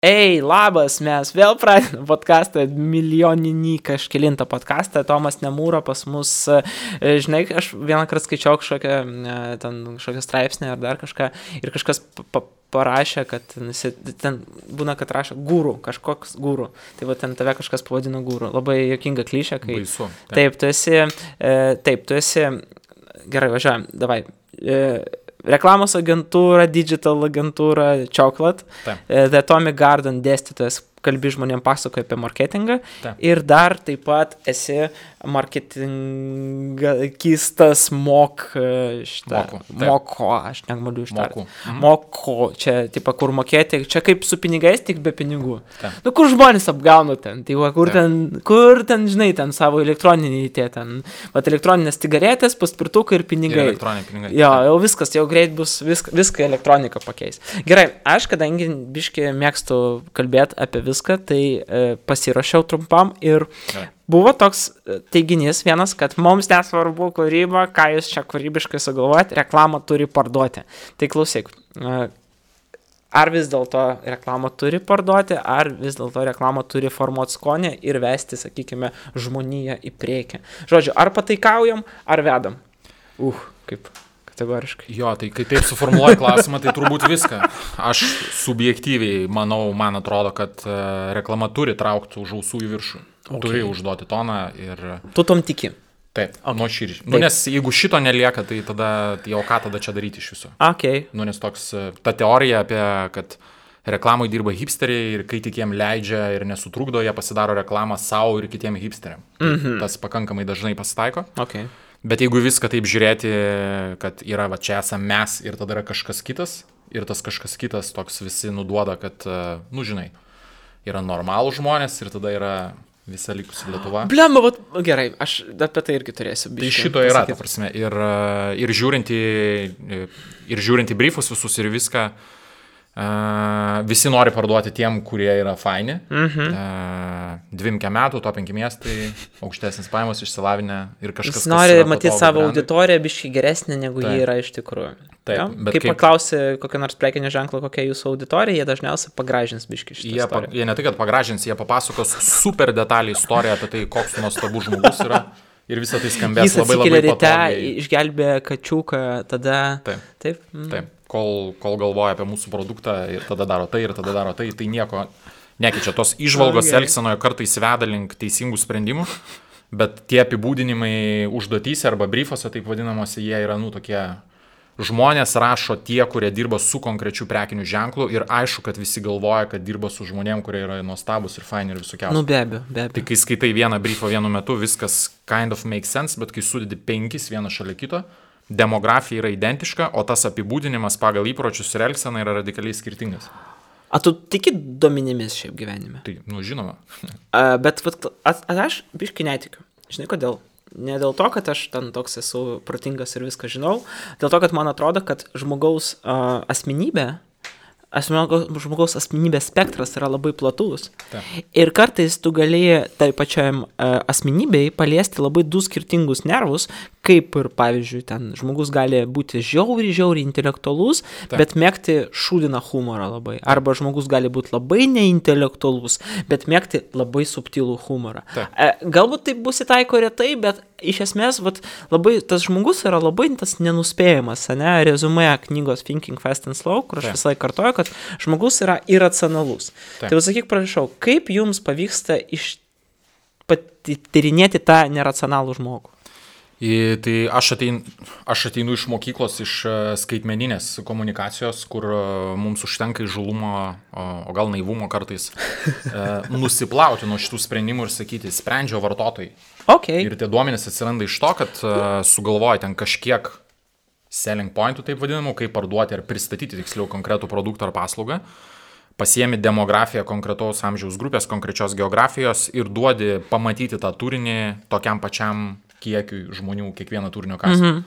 Ei, labas, mes vėl pradedame podcastą, milijoninį kažkelintą podcastą, Tomas Nemūro pas mus, žinai, aš vieną kartą skaičiau kažkokią straipsnį ar dar kažką ir kažkas parašė, kad ten būna, kad rašo guru, kažkoks guru, tai va ten tave kažkas pavadino guru, labai juokinga klišė, kai... Baisu. Taip, tu esi, gerai, važiuojam, davai. Reklamos agentūra, digital agentūra, Chocolate, The Atomic Garden dėstytojas, kalbi žmonėm pasakoja apie marketingą. Taip. Ir dar taip pat esi marketingistas moko, aš negaliu ištarti. Moko, čia, tipo, kur mokėti, čia kaip su pinigais, tik be pinigų. Taip. Nu, kur žmonės apgauna ten, tai va, kur ten, žinai, ten savo elektroninį tie ten, vat elektroninės cigaretės, paspirtukai ir pinigai. Ir elektroniniai pinigai. Jo, jau viskas, jau greit bus, viską elektronika pakeis. Gerai, aš, kadangi biškai mėgstu kalbėti apie viską, tai pasirašiau trumpam ir buvo toks teiginys vienas, kad mums nesvarbu kūryba, ką jūs čia kūrybiškai sugalvojat, reklamą turi parduoti. Tai klausyk, ar vis dėlto reklamą turi parduoti, ar vis dėlto reklamą turi formuoti skonį ir vesti, sakykime, žmoniją į priekį. Žodžiu, ar pataikaujam, ar vedam? Kaip kategoriškai. Jo, tai kai taip suformuoji klausimą, tai turbūt viską. Aš subjektyviai manau, man atrodo, kad reklama turi traukti už ausų į viršų. Okay. Turi užduoti toną ir... Tu tom tiki? Taip, nuoširdžiai. Nu, nes jeigu šito nelieka, tai tada, jau ką tada čia daryti iš viso? Okay. Nu, nes toks, ta teorija apie, kad reklamai dirba hipsteriai ir kai tik jiem leidžia ir nesutrukdo, jie pasidaro reklamą savo ir kitiem hipsteriam. Tas pakankamai dažnai pasitaiko. Okay. Bet jeigu viską taip žiūrėti, kad yra va čia esame mes ir tada yra kažkas kitas, ir tas kažkas kitas toks visi nuduoda, kad, nu žinai, yra normalų žmonės ir tada yra visa likusi Lietuva. Blemba, gerai, aš apie tai irgi turėsiu. Tai šito yra, ta prasme, ir žiūrint į briefus visus ir viską, visi nori parduoti tiem, kurie yra faini. 2 metų, to 5 miestai, aukštesnis pajamos, išsilavinę ir kažkas. Jis nori matyti savo auditoriją biškai geresnė, negu jie yra iš tikrųjų. Taip, ja? Bet kaip paklausi kokio nors prekinio ženklo, kokia jūsų auditorija, jie dažniausiai pagražins biškai šitą istoriją. Jie ne tai, kad pagražins, jie papasakos super detaliai istoriją apie tai, koks nuostabus žmogus yra. Ir visą tai skambės labai patogiai. Jis atsikėlė ryte, išgelbė kačiuką, tada... Taip. Kol galvoja apie mūsų produktą ir tada daro tai, tai nieko nekeičia. Tos įžvalgos elgsenoje kartais veda link teisingų sprendimų, bet tie apibūdinimai užduotyse arba briefuose, taip vadinamosi, jie yra, tokie... Žmonės rašo tie, kurie dirba su konkrečiu prekiniu ženklu ir aišku, kad visi galvoja, kad dirba su žmonėm, kurie yra nuostabus ir faini ir visokiausi. Nu, be abejo. Tai kai skaitai vieną briefą vienu metu, viskas kind of makes sense, bet kai sudedi 5 vieną šalia kito, demografija yra identiška, o tas apibūdinimas pagal įpročius ir elgseną yra radikaliai skirtingas. A tu tiki duomenimis šiaip gyvenime? Tai, žinoma. Bet aš biškai netikiu. Žinai kodėl? Ne dėl to, kad aš ten toks esu protingas ir viską žinau, dėl to, kad man atrodo, kad žmogaus asmenybės spektras yra labai platus. Ir kartais tu galėjai tai pačiam asmenybei paliesti labai 2 skirtingus nervus, kaip ir, pavyzdžiui, ten žmogus gali būti žiauriai intelektualus, bet mėgti šūdiną humorą labai. Arba žmogus gali būti labai neintelektualus, bet mėgti labai subtilų humorą. Galbūt tai bus įtaiko retai, bet iš esmės labai tas žmogus yra labai tas nenuspėjamas, ne? Rezumė knygos Thinking Fast and Slow, kur aš visai kartoju, kad žmogus yra iracionalus. Tai sakyk, prašau, kaip jums pavyksta tyrinėti tą neracionalų žmogų? Tai aš ateinu iš mokyklos, iš skaitmeninės komunikacijos, kur mums užtenka įžūlumo, o gal naivumo kartais, nusiplauti nuo šitų sprendimų ir sakyti, sprendžia vartotojai. Okay. Ir tie duomenys atsiranda iš to, kad sugalvoja ten kažkiek selling pointų, taip vadinamų, kaip parduoti ar pristatyti tiksliau konkretų produktą ar paslaugą, pasiemi demografiją konkretaus amžiaus grupės, konkrečios geografijos ir duodi pamatyti tą turinį tokiam pačiam kiekiui žmonių kiekvieną turinio kasą.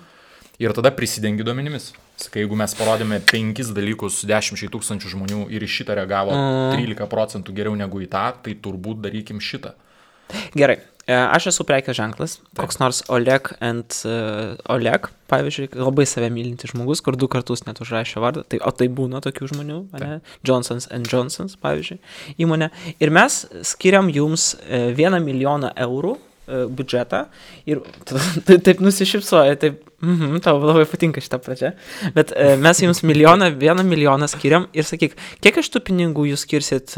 Ir tada prisidengi duomenimis. Sakai, jeigu mes parodėme 5 dalykus 10 000 žmonių ir iš šitą reagavo 13% geriau negu į tą, tai turbūt darykim šitą. Gerai, Aš esu prekės ženklas, koks nors Oleg and Oleg, pavyzdžiui, labai save mylinti žmogus, kur 2 kartus net užrašė vardą, o tai būna tokių žmonių, ne? Johnsons & Johnsons, pavyzdžiui, įmonė. Ir mes skiriam jums 1 milijoną eurų biudžetą ir taip nusišypsoja, taip, tau labai patinka šitą pradžią, bet mes jums 1 milijoną skiriam ir sakyk, kiek iš tų pinigų jūs skirsit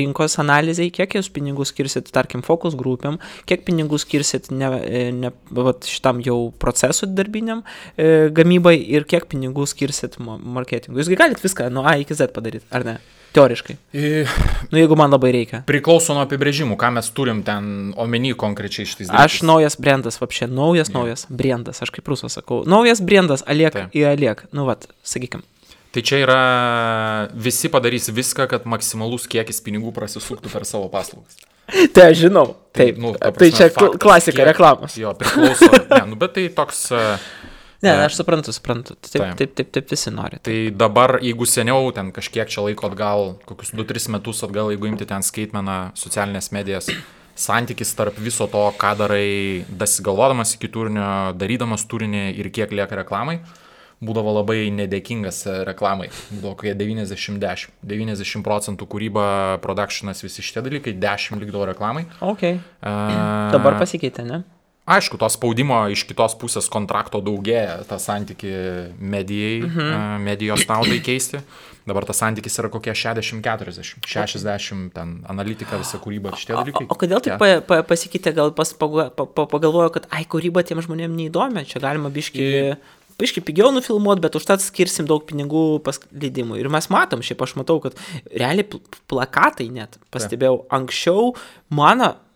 rinkos analizai, kiek jūs pinigų skirsit, tarkim, fokus grupėm, kiek pinigų skirsit šitam jau procesų darbiniam gamybai ir kiek pinigų skirsit marketingui. Jūsgi galit viską nuo A iki Z padaryti, ar ne? Teoriškai. Jeigu man labai reikia. Priklauso nuo apibrėžimų, ką mes turim ten omeny konkrečiai šitais dalykais. Aš naujas brandas, vapšė, naujas brandas, aš kaip rusas sakau. Naujas brandas, aliek į aliek. Sakykim. Tai čia yra, visi padarys viską, kad maksimalus kiekis pinigų prasisuktų per savo paslaugas. Tai aš žinau. Taip. Tai čia klasika reklamos. Jo, priklauso. Bet tai toks... Ne, aš suprantu. Taip visi nori. Tai dabar, jeigu seniau, ten kažkiek čia laiko atgal, kokius 2-3 metus atgal, jeigu imti ten skaitmeną, socialinės medijas, santykis tarp viso to, ką darai, dasigalvodamas iki turinio, darydamas turinį ir kiek lieka reklamai, būdavo labai nedėkingas reklamai. Būdavo kokie 90-10. 90% kūryba, productionas, visi šitie dalykai, 10 likdavo reklamai. Okay. Dabar pasikeitė, ne? Aišku, to spaudimo iš kitos pusės kontrakto daugėja, tą santykį medijos naudai keisti. Dabar tas santykis yra kokie 60-40, 60 ten analitika, visa kūryba, šitie dalykai. O kodėl taip pasikeitė, gal pagalvojo, kad kūryba tiem žmonėm neįdomi, čia galima biški pigiau nufilmuoti, bet užtat skirsim daug pinigų leidimui. Ir mes matom, šiaip aš matau, kad realiai plakatai net, pastebėjau, anksčiau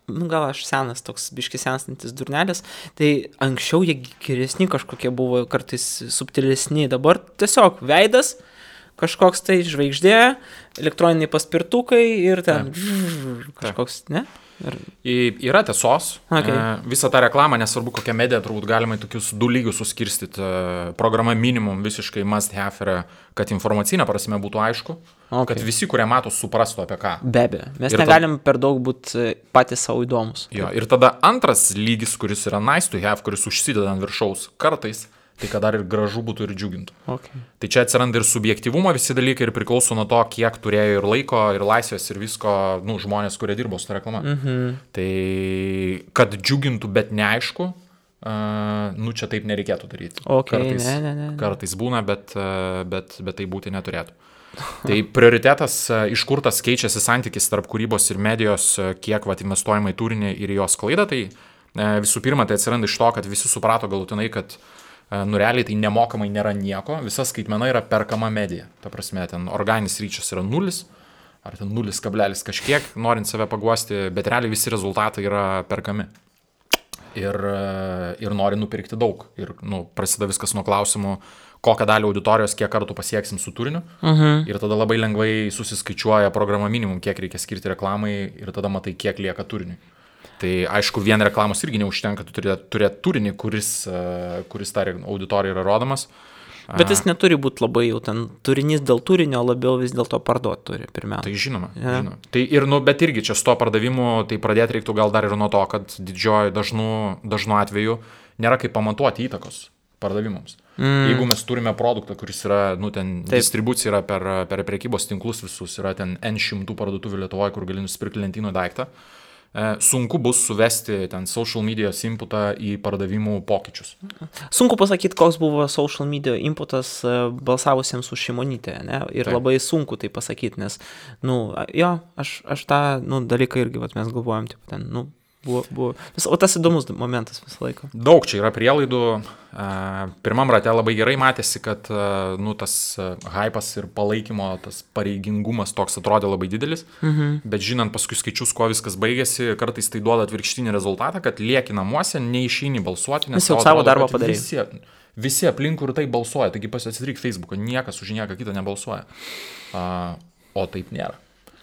gal aš senas, toks biški senstantis durnelis, tai anksčiau jie geresni kažkokie buvo, kartais subtilesni, dabar tiesiog veidas, kažkoks tai žvaigždė, elektroniniai paspirtukai ir ten kažkoks, ne? Yra tiesos. Visą tą reklamą, nesvarbu kokią mediją, turbūt galima į tokius 2 lygius suskirstyti. Programa minimum visiškai must have yra, kad informacinė prasme būtų aišku, kad visi, kurie mato, suprastų apie ką. Be abejo, mes negalim per daug būti patys savo įdomus. Jo, ir tada antras lygis, kuris yra nice to have, kuris užsideda ant viršaus kartais, tai kad dar ir gražu būtų ir džiugintų. Tai čia atsiranda ir subjektyvumo visi dalykai ir priklauso nuo to, kiek turėjo ir laiko, ir laisvės, ir visko, žmonės, kurie dirbo su ta reklama. Tai kad džiugintų, bet neaišku, čia taip nereikėtų daryti. Kartais būna, bet tai būti neturėtų. Tai prioritetas, iš kur tas keičiasi santykis tarp kūrybos ir medijos, kiek investuojama į turinį ir jos klaidą, tai visų pirma, tai atsiranda iš to, kad visi suprato galutinai, kad realiai tai nemokamai nėra nieko, visa skaitmena yra perkama medija. Ta prasme, ten organinis ryčias yra 0, ar ten 0, kažkiek, norint save paguosti, bet realiai visi rezultatai yra perkami. Ir nori nupirkti daug. Ir prasideda viskas nuo klausimų, kokią dalį auditorijos, kiek kartų pasieksim su turiniu. Ir tada labai lengvai susiskaičiuoja programa minimum, kiek reikia skirti reklamai ir tada matai, kiek lieka turiniui. Tai aišku, vien reklamos irgi neužtenka, tu turėti turinį, kuris tą auditoriją yra rodomas. Bet jis neturi būti labai jau ten turinys dėl turinio, labiau vis dėlto parduoti turi pirmiausia. Tai žinoma. Tai bet irgi čia su to pardavimu, tai pradėti reiktų gal dar ir nuo to, kad didžioji dažnu atveju nėra kaip pamatuoti įtakos pardavimams. Jeigu mes turime produktą, kuris yra, distribucija yra per prekybos tinklus visus, yra ten N100 parduotuvių Lietuvoje, kur gali nusipirkti lentyno daiktą, sunku bus suvesti ten social medijos inputą į pardavimų pokyčius. Sunku pasakyti, koks buvo social media inputas balsavusiems už Šimonytę, ne? Ir labai sunku tai pasakyti, nes, aš tą dalyką irgi, mes galvojam, buvo. O tas įdomus momentas visą laiką. Daug čia yra prielaidų. Pirmam rate labai gerai matėsi, kad tas hypas ir palaikymo, tas pareigingumas toks atrodė labai didelis, bet žinant paskui skaičius, kuo viskas baigėsi, kartais tai duoda atvirkštinį rezultatą, kad lieki namuose, neišeini balsuoti, nes jau savo darbą padarė. Visi aplinkui ir tai balsuoja, taigi pasidaryk Facebooką, niekas už nieką kitą nebalsuoja. O taip nėra.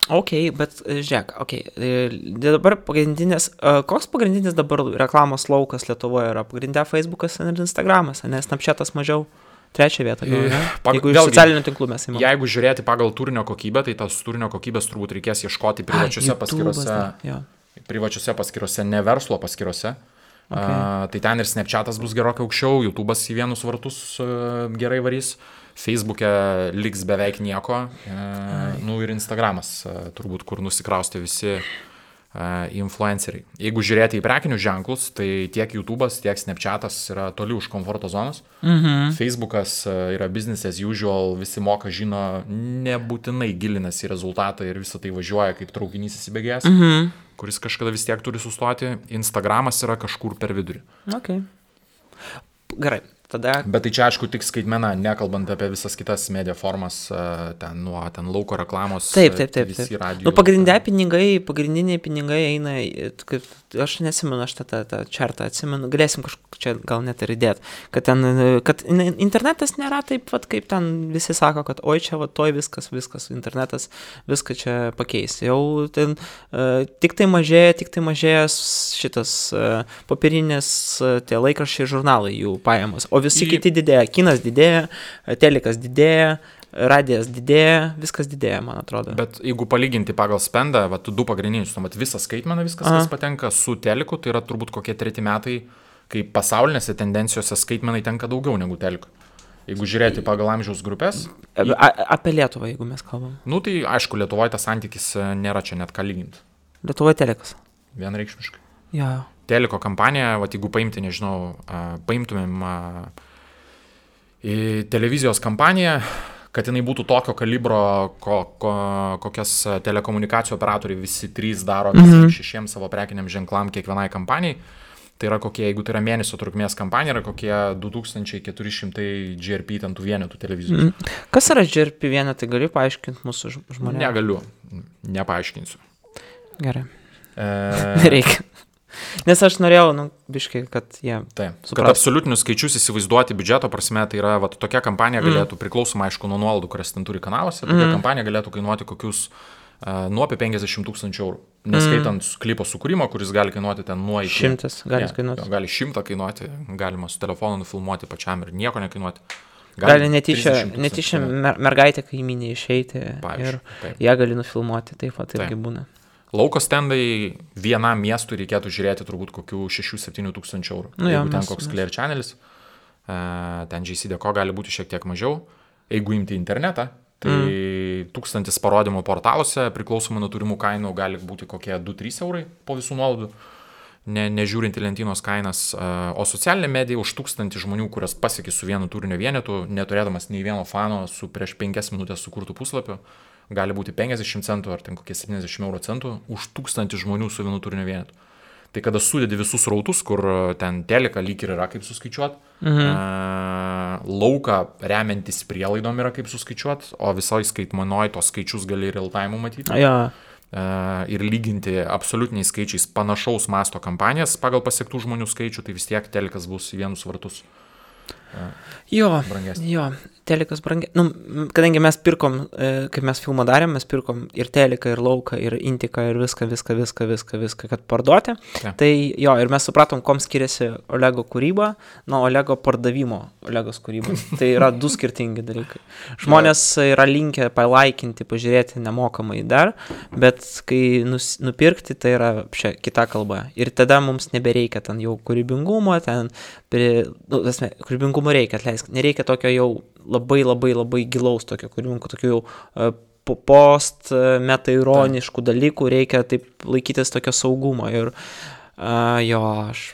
Bet žiūrėk, dabar koks pagrindinis dabar reklamos laukas Lietuvoje yra? Pagrindė Facebookas ir Instagramas, nes Snapchatas mažiau, 3 vietą. Jeigu iš socialinių tinklų mes įmame. Jeigu žiūrėti pagal turinio kokybę, tai tas turinio kokybės turbūt reikės ieškoti privačiuose paskyrose. privačiose paskyrose, ne verslo paskyrose. Tai ten ir Snapchatas bus gerokai aukščiau, YouTube'as į vienus vartus gerai varys, Facebook'e liks beveik nieko, ir Instagramas, turbūt, kur nusikraustė visi influenceriai. Jeigu žiūrėti į prekinius ženklus, tai tiek YouTube'as, tiek Snapchatas yra toli už komforto zonos. Facebook'as yra business as usual, visi moka, žino, nebūtinai gilinasi į rezultatą ir visą tai važiuoja kaip traukinys įsibėgėjęs, kuris kažkada vis tiek turi sustoti. Instagramas yra kažkur per vidurį. Okay. Gerai. Tada... Bet tai čia, aišku, tik skaitmena, nekalbant apie visas kitas media formas, ten lauko reklamos. Taip. Pagrindiniai pinigai eina, aš nesimenu, aš tą čartą atsimenu, galėsim kažkaip čia gal net ir įdėti, kad internetas nėra taip, kaip ten visi sako, kad oi čia, toj viskas, internetas viską čia pakeis. Jau ten tik tai mažėja šitas popierinės tie laikraščiai žurnalai jų pajamos. O visi kiti didėja, kinas didėja, telekas didėja, radijas didėja, viskas didėja, man atrodo. Bet jeigu palyginti pagal spendą, du pagrindinius, visą skaitmeną, viskas, kas patenka su teleku, tai yra turbūt kokie 3 metai, kai pasaulinėse tendencijose skaitmenai tenka daugiau negu teleku. Jeigu žiūrėti pagal amžiaus grupės. Apie Lietuvą, jeigu mes kalbam. Tai aišku, Lietuvoje tas santykis nėra čia net ką lyginti. Lietuvoje telekas. Vienreikšmiškai. Jo. Teliko kampanija, jeigu paimti, nežinau, paimtumėm televizijos kampaniją, kad jinai būtų tokio kalibro, kokias telekomunikacijų operatoriai visi 3 daro 6 savo prekiniam ženklam kiekvienai kampanijai, tai yra kokie, jeigu tai yra mėnesio trukmės kampanija, yra kokie 2400 GRP ten tų vienetų televizijos. Kas yra GRP vienetai, gali paaiškinti mūsų žmonėms? Negaliu, nepaaiškinsiu. Gerai. Nereikia. Nes aš norėjau, biškai, kad jie suprastų. Kad absoliutinius skaičius įsivaizduoti biudžeto prasme, tai yra, tokia kampanija galėtų, priklausoma, aišku, nuo nuolaidų, kurias ten turi kanaluose, tokia kampanija galėtų kainuoti kokius nuo apie 50 000 eurų. Neskaitant klipo sukūrimo, kuris gali kainuoti ten nuo iki... 100 gali kainuoti. Gali 100 kainuoti, galima su telefonu nufilmuoti pačiam ir nieko nekainuoti. Gali netyčia mergaitė kaimynė išeiti ir ją gali nufilmuoti, taip pat irgi būna. Lauko stendai vienam miestui reikėtų žiūrėti turbūt kokių 6-7 tūkstančių eurų. Jeigu ten koks Clear Channelis, ten JCDecaux gali būti šiek tiek mažiau. Jeigu imti internetą, tai 1000 parodymų portaluose priklausomai nuo turimų kainų gali būti kokie 2-3 eurai po visų nuolaidų, nežiūrint į lentynos kainas. O socialinė medija už 1000 žmonių, kurias pasiekė su vienu turinio vienetu, neturėdamas nei vieno fano su prieš 5 minutės sukurtų puslapiu, gali būti 50 centų ar ten kokie 70 euro centų už 1000 žmonių su vienu turinio vienetu. Tai kada sudedi visus rautus, kur ten teleka lyg ir yra kaip suskaičiuot, lauką remiantis prielaidom yra kaip suskaičiuot, o visoj skaitmenoj tos skaičius gali real time matyti. Ir lyginti absoliutiniais skaičiais panašaus masto kampanijas pagal pasiektų žmonių skaičių, tai vis tiek telekas bus į vienus vartus. Telekas brangiai. Kadangi mes pirkom, kaip mes filmą darėm, mes pirkom ir teleką, ir lauką, ir intiką, ir viską, kad parduoti. Tai ir mes supratom, kom skiriasi Olego kūryba nuo Olego pardavimo Olegos kūrybos. Tai yra 2 skirtingi dalykai. Žmonės yra linkę palaikinti, pažiūrėti nemokamai dar, bet kai nupirkti, tai yra kita kalba. Ir tada mums nebereikia ten jau kūrybingumo, kūrybingumo reikia, atleisk, nereikia tokio jau labai gilaus tokio kūrybingo, tokių jau post-metaironiškų dalykų, reikia taip laikytis tokio saugumo ir aš,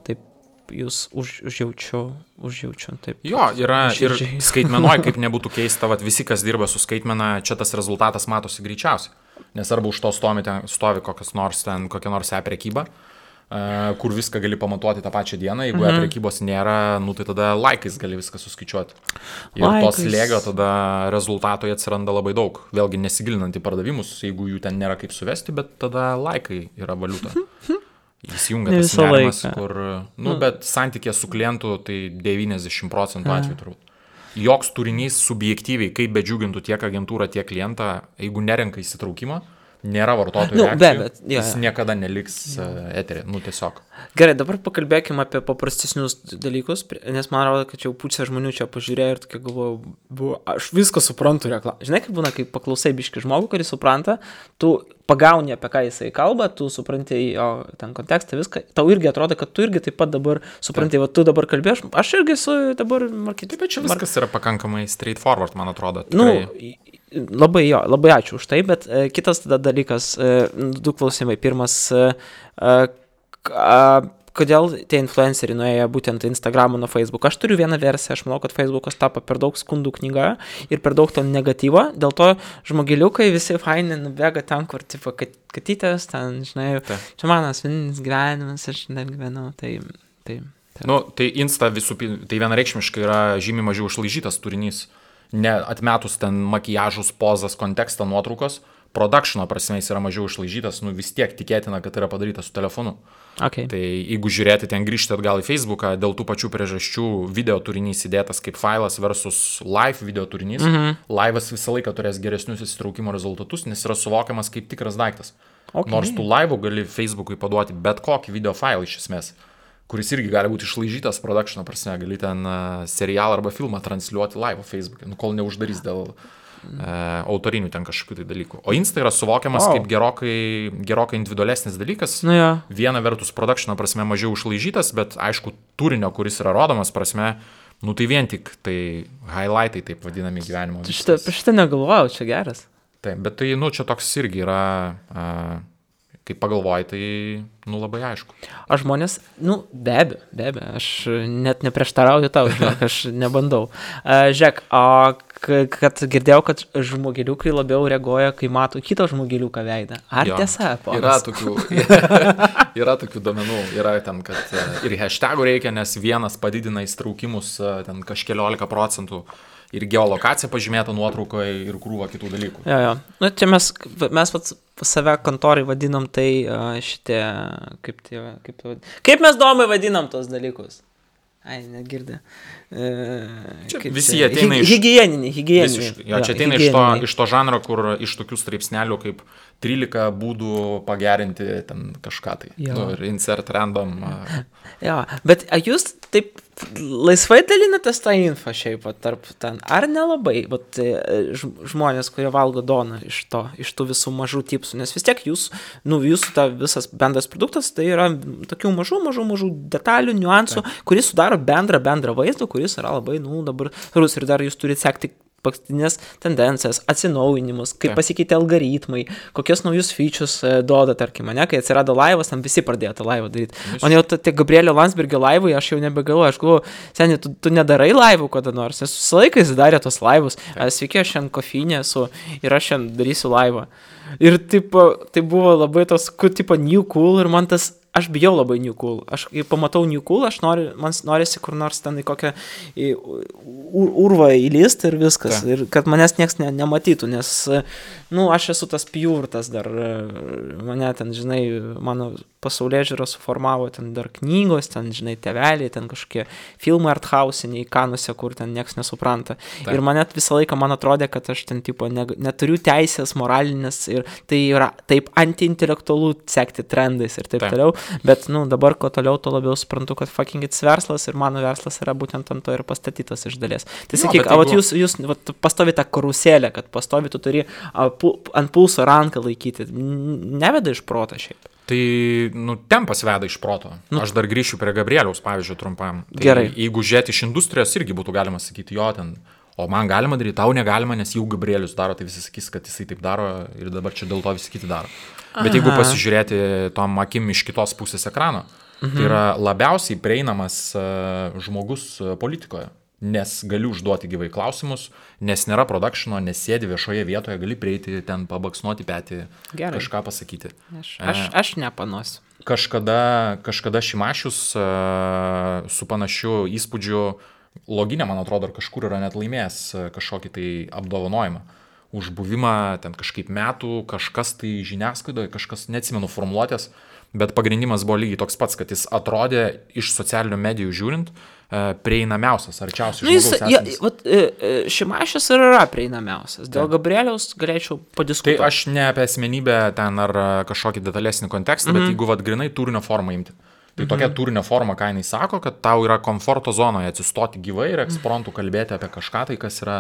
taip jūs užjaučiu, taip. Yra ir skaitmenoj, kaip nebūtų keista, visi, kas dirba su skaitmena, čia tas rezultatas matosi greičiausiai, nes arba už to stovi kokia nors e-prekyba, kur viską gali pamatuoti tą pačią dieną, jeigu prekybos nėra, tai tada laikais gali viską suskaičiuoti. Ir tos lėgio tada rezultatoje atsiranda labai daug. Vėlgi nesigilinant į pardavimus, jeigu jų ten nėra kaip suvesti, bet tada laikai yra valiuta. Įsijungia tas nerimas, kur, bet santykė su klientu, tai 90% atveju turbūt. Joks turinys subjektyviai, kaip bedžiugintų tiek agentūrą, tiek klientą, jeigu nerenka įsitraukimo, nėra vartotojų reakcijų, jis jo. niekada neliks eterį, tiesiog. Gerai, dabar pakalbėkime apie paprastesnius dalykus, nes man atrodo, kad jau pusė žmonių čia pažiūrėjo ir tokia galvoju, aš viską suprantu reklamą. Žinai, kaip būna, kai paklausai biškį žmogų, kuris supranta, tu pagauni, apie ką jisai kalba, tu supranti jo ten kontekstą, viską, tau irgi atrodo, kad tu irgi taip pat dabar supranti, va tu dabar kalbėjai, aš irgi esu dabar marketingas. Taip, bet čia viskas yra pakankamai straightforward, man atrodo. Labai ačiū už tai, bet kitas tada dalykas, du klausimai. Pirmas, kodėl tie influenceriai nuėjo būtent Instagramą nuo Facebook. Aš turiu vieną versiją, aš manau, kad Facebookas tapo per daug skundų knyga ir per daug to negatyvo, dėl to žmogeliukai visi faini nubėga ten, kur tipo katytės, ten, žinai, čia mano asmeninis gyvenimas, aš ten gyvenau, tai. Tai Insta tai vienareikšmiškai yra žymiai mažiau išlaižytas turinys. Atmetus ten makiažus, pozas, kontekstą, nuotraukos, productiono prasme jis yra mažiau išlaižytas, vis tiek tikėtina, kad yra padarytas su telefonu. Okay. Tai jeigu žiūrėti ten grįžti atgal į Facebooką, dėl tų pačių priežasčių video turinys įdėtas kaip failas versus live video turinys, live'as visą laiką turės geresnius įsitraukimo rezultatus, nes yra suvokiamas kaip tikras daiktas. Okay. Nors tu live'u gali Facebook'ui paduoti bet kokį video failą iš esmės, kuris irgi gali būti išlaižytas productiono prasme, gali ten serialą arba filmą transliuoti live Facebook'e, kol neuždarys dėl autorinių ten kažkokių tai dalykų. O Insta yra suvokiamas kaip gerokai individualesnis dalykas. Viena vertus productiono prasme mažiau išlaižytas, bet aišku turinio, kuris yra rodomas prasme, tai vien tik tai highlightai taip vadinami gyvenimo. Šitą negalvojau, čia geras. Taip, bet tai, čia toks irgi yra, kaip pagalvoji, tai, labai aišku. Aš žmonės, be abejo, aš net neprieštarauju tau, žinok, aš nebandau. Žiūrėk, kad girdėjau, kad žmogeliukai labiau reaguoja, kai mato kito žmogeliuką veidą. Ar tiesa, ponas? Yra tokių domenų, yra ten, kad ir hashtagų reikia, nes vienas padidina įstraukimus ten kažkeliolika procentų. Ir geolokacija pažymėta nuotraukoje ir krūva kitų dalykų. Jo. Čia mes save kontorai vadinam tai šitie, kaip mes domai vadinam tos dalykus? Ai, negirdė. Visi ateina iš... Higieniniai. Jo, čia ateina iš to žanro, kur iš tokių straipsnelių kaip 13 būdų pagerinti ten kažką tai. Ir insert random. Jo, bet jūs taip laisvai dalinatės tą infą šiaip tarp ten, ar nelabai, bet žmonės, kurie valgo doną iš tų visų mažų tipsų, nes vis tiek jūsų ta visas bendras produktas, tai yra tokių mažų detalių, niuansų, kuris sudaro bendrą vaizdą, kuris yra labai, dabar rus ir dar jūs turite sekti paskutinės tendencijas, atsinaujinimus, kaip pasikeitė algoritmai, kokios naujus features duoda, tarkim, kai atsirado laivas, tam visi pradėjo tą laivą daryti. Man jau tie Gabrielio Landsbergio laivai, aš jau nebegalvoju, aš galvoju, seniai, tu nedarai laivų kada nors, nes visą laiką jis darė tos laivus. Sveiki, aš šiandien kofinė esu ir aš šiandien darysiu laivą. Ir tai buvo labai tos, tipo new cool ir man tas, aš bijau labai new cool. Aš kai pamatau new cool, man norisi kur nors ten į kokią urvą įlysti ir viskas. Ir kad manęs nieks nematytų, nes, aš esu tas pjūrtas dar, mane ten, žinai, mano pasaulėžiūra suformavo ten dar knygos, ten, žinai, tėveliai, ten kažkokie filmai arthausiniai, kanuose, kur ten nieks nesupranta. Ir man visą laiką man atrodė, kad aš ten, tipo, neturiu teisės moralinės ir tai yra taip antiintelektualu sekti trendais ir taip toliau. Bet, dabar ko toliau, to labiau suprantu, kad fucking it's verslas ir mano verslas yra būtent ant to ir pastatytas iš dalies. Tai sakyk, jūs pastovi tą karusėlę, kad pastovi tu turi ant pulso ranką laikyti. Neveda iš proto šiaip. Tai, tempas veda iš proto. Aš dar grįšiu prie Gabrieliaus, pavyzdžiui, trumpam. Tai gerai. Jeigu žiūrėti iš industrijos, irgi būtų galima sakyti, jo ten, o man galima daryti, tau negalima, nes jau Gabrielius daro, tai visi sakys, kad jisai taip daro ir dabar čia dėl to visi kiti daro. Bet jeigu pasižiūrėti tom akim iš kitos pusės ekrano, tai yra labiausiai prieinamas žmogus politikoje, nes gali užduoti gyvai klausimus, nes nėra productiono, nes sėdi viešoje vietoje, gali prieiti ten pabaksnuoti petį, kažką pasakyti. Aš nepanosiu. Kažkada Šimašius su panašiu įspūdžiu Loginė, man atrodo, ar kažkur yra net laimėjęs kažkokį tai apdovanojimą už buvimą ten kažkaip metų, kažkas tai žiniasklaidoje, kažkas, neatsimenu formuluotės, bet pagrindimas buvo lygiai toks pats, kad jis atrodė iš socialinių medijų žiūrint prieinamiausias, arčiausiai žmogaus esantis. Šimašius ir yra prieinamiausias. Dėl Gabrieliaus galėčiau padiskutuoti. Tai aš ne apie asmenybę ten ar kažkokį detalesnį kontekstą, bet jeigu grinai turinio formą imti. Tai tokia turinio forma, ką jinai sako, kad tau yra komforto zonoje atsistoti gyvai ir ekspromtu kalbėti apie kažką, tai kas yra,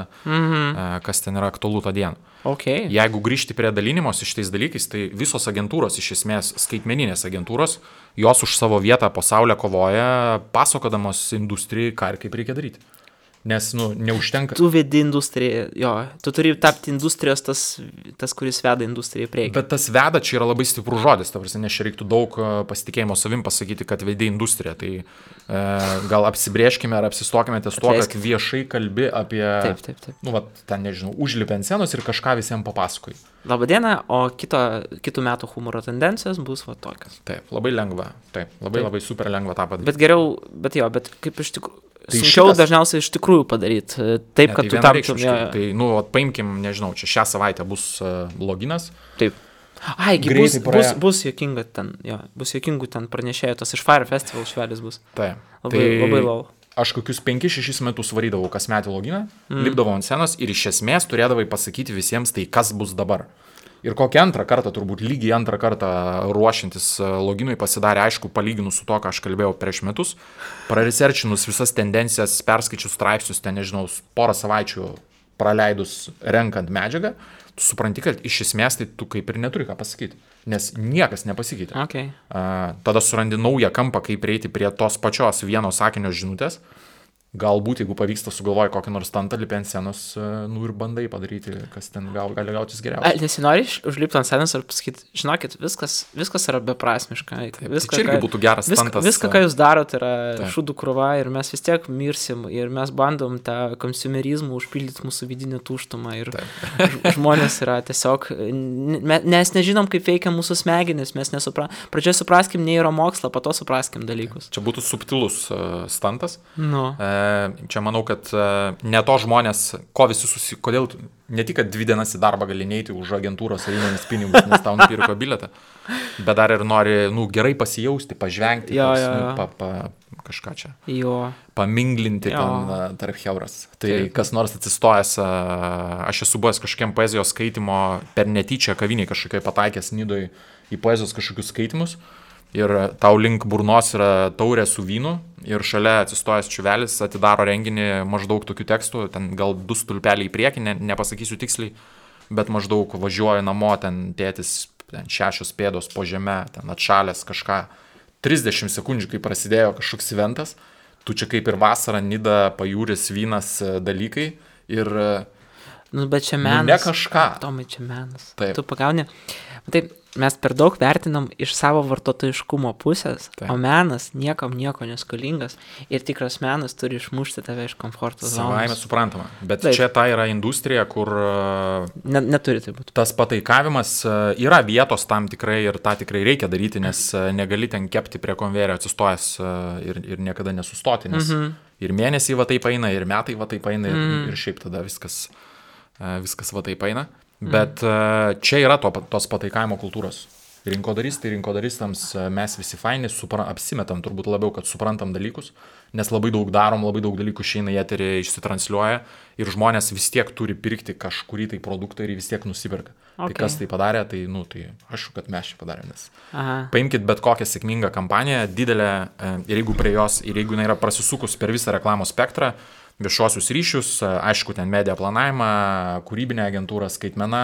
kas ten yra aktualu tą dieną. Okay. Jeigu grįžti prie dalinimos iš tais dalykais, tai visos agentūros, iš esmės skaitmeninės agentūros, jos už savo vietą pasaulyje kovoja, pasakodamos industrijai, ką ir kaip reikia daryti. Nes, neužtenka. Tu vedi industriją, jo, tu turi tapti industrijos tas kuris veda industriją į priekį. Bet tas veda čia yra labai stiprus žodis, ta prasme, nes čia reiktų daug pasitikėjimo savim pasakyti, kad vedi industriją. Tai gal apsibrėžkime ar apsistokime ties tuo, kad viešai kalbi apie, ten nežinau, užlipę ant scenos ir kažką visiems papasakoji. Labadiena, o kitų metų humoro tendencijos bus tokios. Taip, labai lengva, labai super lengva tą padaryti. Bet geriau, bet kaip iš tikrųjų. Tai sunkiau dažniausiai iš tikrųjų padaryti, taip, kad tu taptum. Tai, paimkim, nežinau, čia šią savaitę bus loginas. Taip. Bus juokinga ten, bus juokingų ten pranešėjų, tas iš Fire Festival švelis bus. Taip. Labai lau. Aš kokius 5-6 metus varydavau kasmetį loginą, lipdavau ant scenos ir iš esmės turėdavai pasakyti visiems tai, kas bus dabar. Ir kokią antrą kartą, turbūt lygiai antrą kartą ruošiantis loginui pasidarė aišku, palyginus su to, ką aš kalbėjau prieš metus, praresearchinus visas tendencijas, perskaičius straipsnius, ten nežinau, porą savaičių praleidus renkant medžiagą, tu supranti, kad iš esmės tai tu kaip ir neturi ką pasakyti, nes niekas nepasikeitė. Okay. Tada surandi naują kampą, kaip prieiti prie tos pačios vieno sakinio žinutės. Galbūt, jeigu pavyksta sugalvoji kokį nors stantą lipę ant scenos, ir bandai padaryti, kas ten gali gautis geriausiai. Nesinori užlipti ant scenos ir pasakyti, žinokit, viskas yra beprasmiška. Tai čia irgi būtų geras stantas. Viską, ką jūs darot, yra šūdų krūva ir mes vis tiek mirsim ir mes bandom tą konsumerizmą užpildyti mūsų vidinį tuštumą ir žmonės yra tiesiog, mes nežinom, kaip veikia mūsų smegenis, mes pradžioje supraskim neuromokslą, po to supraskim dalykus. Čia būtų subtilus stantas. Čia manau, kad ne to žmonės, kodėl ne tik, kad 2 dienas į darbą gali neiti už agentūros einėmis pinigus, nes tau nupirko bilietą, bet dar ir nori, gerai pasijausti, pažvengti, kažką čia, paminglinti ten tarp heuras. Tai kas nors atsistojęs, aš esu buvęs kažkokiam poezijos skaitimo per netyčią kaviniai kažkokiai pataikęs Nidoj į poezijos kažkokius skaitimus. Ir tau link burnos yra taurė su vynu ir šalia atsistojęs čiuvelis atidaro renginį maždaug tokių tekstų, ten gal 2 stulpeliai į priekį, nepasakysiu tiksliai, bet maždaug važiuoju namo, ten tėtis, ten 6 pėdos po žeme, ten atšalęs kažką, 30 sekundžių, kai prasidėjo kažkoks eventas, tu čia kaip ir vasara, Nida, pajūris, vynas dalykai ir... bet čia menas. Ne kažką. Tomai, čia menas. Taip. Tu pagauni. Taip, mes per daug vertinam iš savo vartotojiškumo pusės, o menas niekam nieko neskolingas ir tikras menas turi išmušti tave iš komforto zonos. Savaime suprantama, bet čia ta yra industrija, kur neturi tai būti. Tas pataikavimas yra vietos tam tikrai ir tą tikrai reikia daryti, nes negali ten kepti prie konvejerio atsistojęs ir niekada nesustoti, nes ir mėnesiai va taip eina, ir metai va taip eina ir šiaip tada viskas va taip eina. Bet čia yra tos pataikavimo kultūros. Rinkodaristams mes visi faini, apsimetam turbūt labiau, kad suprantam dalykus, nes labai daug darom, labai daug dalykų išeina į eterį, išsitransliuoja ir žmonės vis tiek turi pirkti kažkurį tai produktą ir vis tiek nusiperka. Tai kas tai padarė, tai aišku, kad mes čia padarėm. Paimkit bet kokią sėkmingą kampaniją, didelę, ir jeigu prie jos, ir jeigu jinai yra prasisukus per visą reklamos spektrą, viešuosius ryšius, aišku, ten media planavimą, kūrybinę agentūrą, skaitmeną,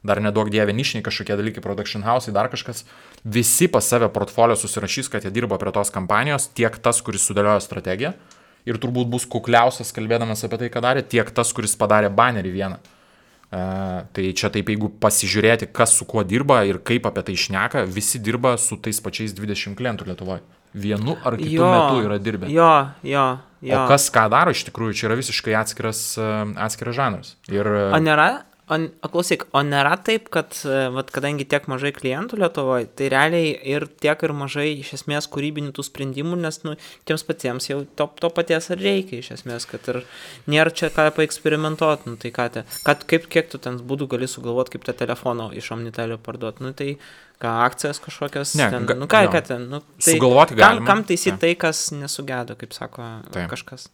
dar neduok dievė nišiniai kažkokie dalykai, production house, dar kažkas. Visi pas save portfolio susirašys, kad jie dirbo prie tos kampanijos, tiek tas, kuris sudėliojo strategiją ir turbūt bus kukliausias kalbėdamas apie tai, ką darė, tiek tas, kuris padarė banerį vieną. Tai čia taip, jeigu pasižiūrėti, kas su kuo dirba ir kaip apie tai šneka, visi dirba su tais pačiais 20 klientų Lietuvoje. Vienu ar kitu metu yra dirbę. Jo. O kas ką daro, iš tikrųjų, čia yra visiškai atskiras žanras. Ir... O klausyk, o nėra taip, kad, vat, kadangi tiek mažai klientų Lietuvoje, tai realiai ir tiek ir mažai iš esmės kūrybinių tų sprendimų, nes nu, tiems patiems jau to paties ar reikia iš esmės, kad ir nėra čia ką paeksperimentuoti, nu tai kiek tu ten būdų gali sugalvoti, kaip tą telefoną iš Omnitelio parduoti, nu tai ką akcijas kažkokias, Ne, ten, nu ką ten, nu tai Sugalvoti galima. kam taisyti tai, kas nesugedo, kaip sako kažkas.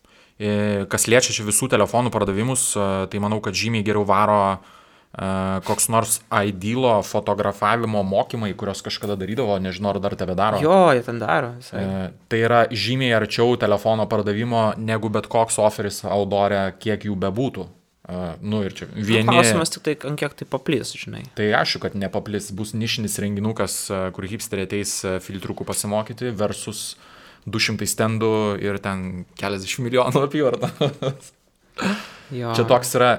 Kas liečia čia visų telefonų pardavimus, tai manau, kad žymiai geriau varo koks nors Idealo fotografavimo mokymai, kurios kažkada darydavo, nežinau, ar dar tebe daro. Jo, jie ten daro. Tai yra žymiai arčiau telefono pardavimo, negu bet koks oferis Outdoor'e, kiek jų bebūtų. Nu ir čia vieni... Klausimas tik tai, ant kiek tai paplis, žinai. Tai aišku, kad nepaplis, bus nišinis renginukas, kur hipsteriai ateis filtriukų pasimokyti versus 200 stendų ir ten keliasdešimt milijonų apyvartą. Čia toks yra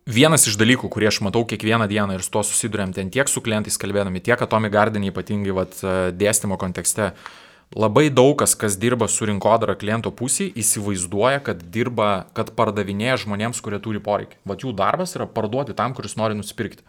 vienas iš dalykų, kurie aš matau kiekvieną dieną ir su to susiduriam ten tiek su klientais kalbėdami, tiek Atomic Garden ypatingai dėstymo kontekste. Labai daug kas dirba su rinkodara kliento pusėje, įsivaizduoja, kad pardavinėja žmonėms, kurie turi poreikį. Vat jų darbas yra parduoti tam, kuris nori nusipirkti.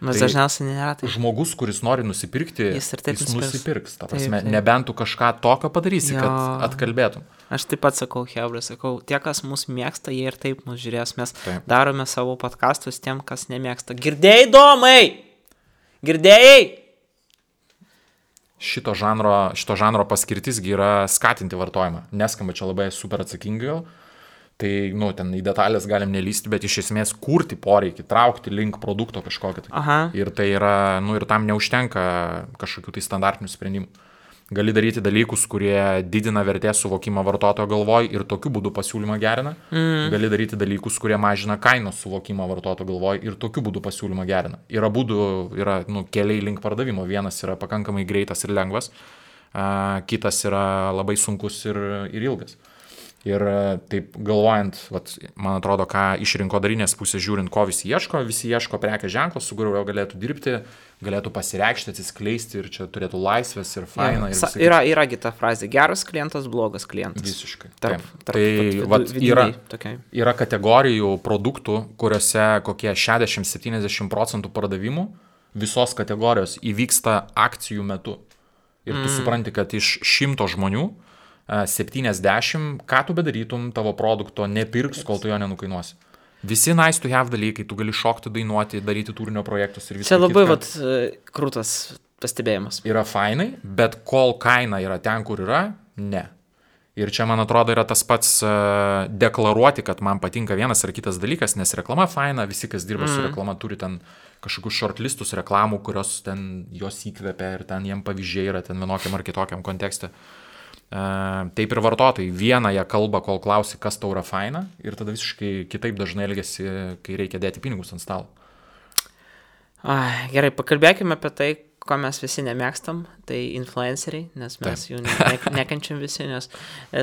Nes dažniausiai nėra tai. Žmogus, kuris nori nusipirkti, jis nusipirks. Ta prasme, Taip. nebent tu kažką tokio padarysi, Jo. kad atkalbėtum. Aš taip pat sakau, hebra, tie, kas mus mėgsta, jie ir taip mus žiūrės. Mes Taip. darome savo podcastus tiem, kas nemėgsta. Girdėjai, Domai? Girdėjai? Šito žanro paskirtisgi yra skatinti vartojimą. Neskamba čia labai super atsakingai, tai, nu, ten į detalės galim nelysti, bet iš esmės kurti poreikį, traukti link produkto kažkokį. Tai. Aha. Ir tai yra, nu, ir tam neužtenka kažkokių tai standartinių sprendimų. Gali daryti dalykus, kurie didina vertės suvokimą vartotojo galvoj ir tokiu būdu pasiūlymą gerina. Gali daryti dalykus, kurie mažina kainos suvokimą vartotojo galvoj ir tokiu būdu pasiūlymą gerina. Yra būdų, keliai link pardavimo. Vienas yra pakankamai greitas ir lengvas, kitas yra labai sunkus ir ilgas. Ir taip galvojant, man atrodo, ką iš rinkodarinės pusės žiūrint, ko visi ieško prekės ženklo, su kuriuo galėtų dirbti, galėtų pasireikšti, atsiskleisti ir čia turėtų laisvės ir faina. Yra kita frazė, geras klientas, blogas klientas. Visiškai. Tai yra kategorijų produktų, kuriuose kokie 60-70% pardavimų visos kategorijos įvyksta akcijų metu. Ir tu supranti, kad iš 100 žmonių 70, ką tu bedarytum, tavo produkto nepirks, kol tu jo nenukainuosi. Visi nice to have dalykai, tu gali šokti, dainuoti, daryti turinio projektus ir visą. Čia labai krūtas pastebėjimas. Yra fainai, bet kol kaina yra ten, kur yra, ne. Ir čia, man atrodo, yra tas pats deklaruoti, kad man patinka vienas ar kitas dalykas, nes reklama faina, visi, kas dirba su reklama, turi ten kažkokius shortlistus reklamų, kurios ten jos įkvepia ir ten jiem pavyzdžiai yra ten vienokiam ar kitokiam kontekste. Taip ir vartotojai. Vieną jie kalba, kol klausi, kas tau yra faina, ir tada visiškai kitaip dažnai elgiasi, kai reikia dėti pinigus ant stalo. Gerai, pakalbėkime apie tai, ko mes visi nemėgstam, tai influenceriai, nes mes jų nekenčiam visi, nes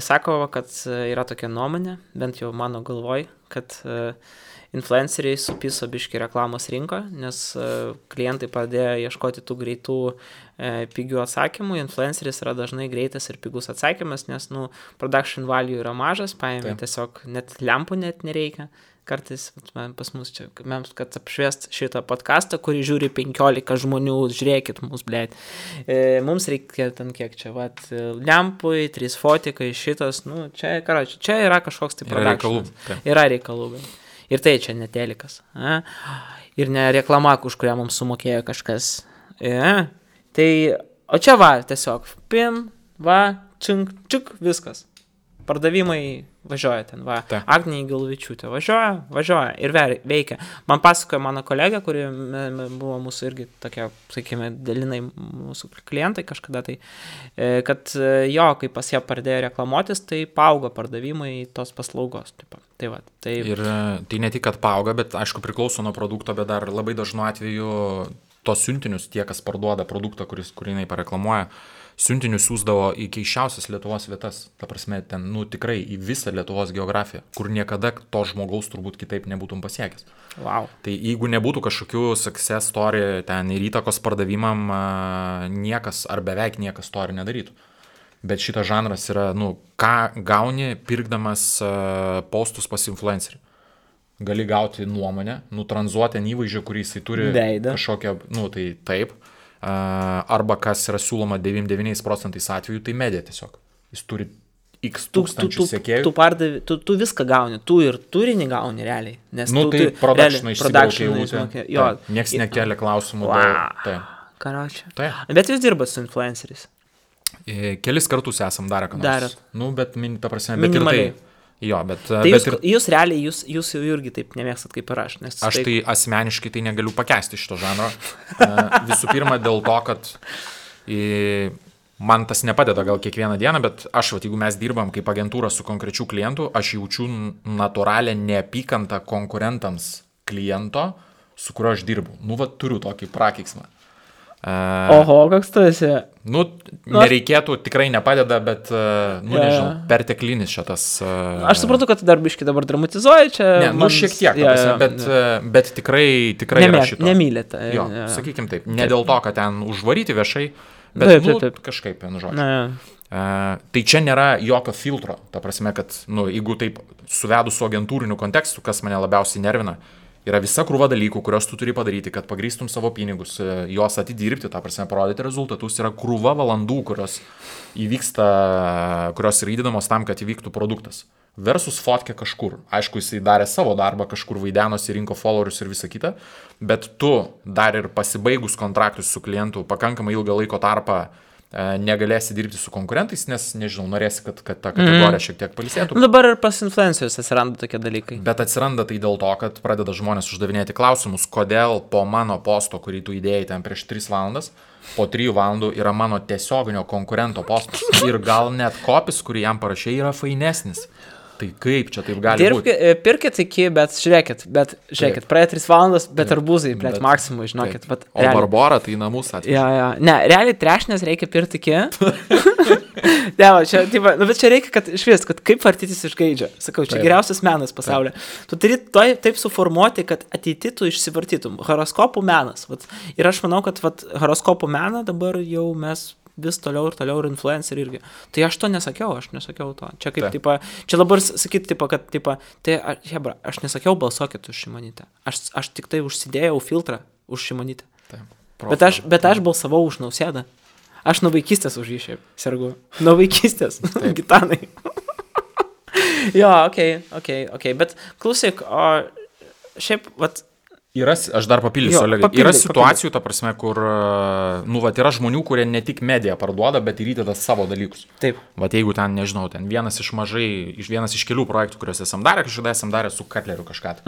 sako, kad yra tokia nuomonė, bent jau mano galvoj, kad influenceriai supiso biškį reklamos rinką, nes klientai pradėjo ieškoti tų greitų pigių atsakymų. Influenceris yra dažnai greitas ir pigus atsakymas, nes production value yra mažas, paėmė tiesiog net lempų net nereikia. Kartais pas mus čia, kad apšviest šitą podcastą, kurį žiūri 15 žmonių, žiūrėkit mus, blėt. Mums reikia ten kiek čia, lempui, 3 fotikai, šitas, čia yra kažkoks tai productionas. Yra reikalų. Ir tai čia ne telikas. Ir ne reklama, už kurią mums sumokėjo kažkas. Tai, o čia tiesiog, pim, čink, čik, viskas. Pardavimai važiuoja ten, Agnija Galvičiūtė važiuoja ir veikia. Man pasakojo mano kolegė, kuri buvo mūsų irgi tokia, sakykime, dalinai mūsų klientai kažkada, tai kad kai pas ją pradėjo reklamuotis, tai paaugo pardavimai tos paslaugos. Ir tai ne tik, kad paauga, bet aišku priklauso nuo produkto, bet dar labai dažnu atveju tos siuntinius, tie, kas parduoda produktą, kurį jinai pareklamuoja, siuntinius siūsdavo į keisčiausias Lietuvos vietas. Ta prasme, ten, tikrai į visą Lietuvos geografiją, kur niekada to žmogaus turbūt kitaip nebūtum pasiekęs. Wow. Tai jeigu nebūtų kažkokių success story ten ir įtakos pardavimam, niekas ar beveik niekas to ir nedarytų. Bet šitas žanras yra, ką gauni pirkdamas postus pas influencerį. gali gauti nuomonę, nutranzuoti įvaizdžio, kurį jisai turi kažkokią, tai taip, arba kas yra siūloma 99% atvejų, tai medija tiesiog. Jis turi X tūkstančių sekėjų. Tu viską gauni, tu ir turinį gauni realiai. Nes tai production išsibraukė. Niekas nekelia klausimų. Karočią. Bet jūs dirbat su influenceriais? Kelis kartus esam darę, ką nors. Bet ta prasme, minimaliai. Tai jūs realiai, jūs jau irgi taip nemėgstat kaip ir aš. Aš tai asmeniškai tai negaliu pakęsti šito žanro. Visų pirma dėl to, kad man tas nepadeda gal kiekvieną dieną, bet jeigu mes dirbam kaip agentūra su konkrečiu klientu, aš jaučiu natūralią neapykantą konkurentams kliento, su kuriuo aš dirbu. Turiu tokį prakeiksmą. Oho, koks tu esi? Nereikėtų, tikrai nepadeda, bet, nežinau, perteklinis šitas. Aš suprantu, kad tu dar biškį dabar dramatizuoji čia. Šiek tiek, bet tikrai yra šito. Nemylėte. Sakykim taip, ne dėl to, kad ten užvaryti viešai, bet kažkaip, žodžiu. Tai čia nėra jokio filtro, ta prasme, kad, jeigu taip suvedus su agentūriniu kontekstu, kas mane labiausiai nervina, yra visa krūva dalykų, kurios tu turi padaryti, kad pagrįstum savo pinigus, juos atidirbti, ta prasme, parodyti rezultatus, yra krūva valandų, kurios yra įdedamos tam, kad įvyktų produktas. Versus fotkė kažkur. Aišku, jisai darė savo darbą, kažkur vaidenosi, rinko followerius ir visą kitą, bet tu dar ir pasibaigus kontraktus su klientu pakankamai ilgą laiko tarpą negalėsi dirbti su konkurentais, nes, nežinau, norėsi, kad ta kategorija šiek tiek pailsėtų. Dabar ir pas influencerius atsiranda tokie dalykai. Bet atsiranda tai dėl to, kad pradeda žmonės uždavinėti klausimus, kodėl po mano posto, kurį tu įdėjai ten prieš 3 valandas, po 3 valandų yra mano tiesioginio konkurento postas. Ir gal net kopis, kurį jam parašė, yra fainesnis. Tai kaip čia taip gali būti? Pirkit iki, bet žiūrėkit, praėjo 3 valandas, bet arbūzai, maksimui, žinokit. O Barbora tai namus atvežė. Ne, realiai trešnės reikia pirkti iki. Bet čia reikia, kad išvis, kad kaip vartytis iš gaidžio. Sakau, čia geriausias menas pasaulyje. Tu turi taip suformuoti, kad ateity tu išsivartytum. Horoskopų menas. Ir aš manau, kad horoskopų meną dabar jau mes vis toliau ir influencer irgi. Tai aš to nesakiau to. Čia kaip, čia dabar sakyti, aš nesakiau balsuokit už Šimonytę. Aš tik tai užsidėjau filtrą už Šimonytę. Bet aš balsavau už Nausėdą. Aš nuo vaikystės už jį šiaip sergu. Nuo vaikystės. Gitanai. Okay. Bet klausyk, o šiaip, aš dar papildysiu, Olegai. Yra situacijų, ta prasme, kur, yra žmonių, kurie ne tik mediją parduoda, bet ir įdeda savo dalykus. Taip. Jeigu ten, nežinau, vienas iš kelių projektų, kuriuos esam darę su Katleriu kažką.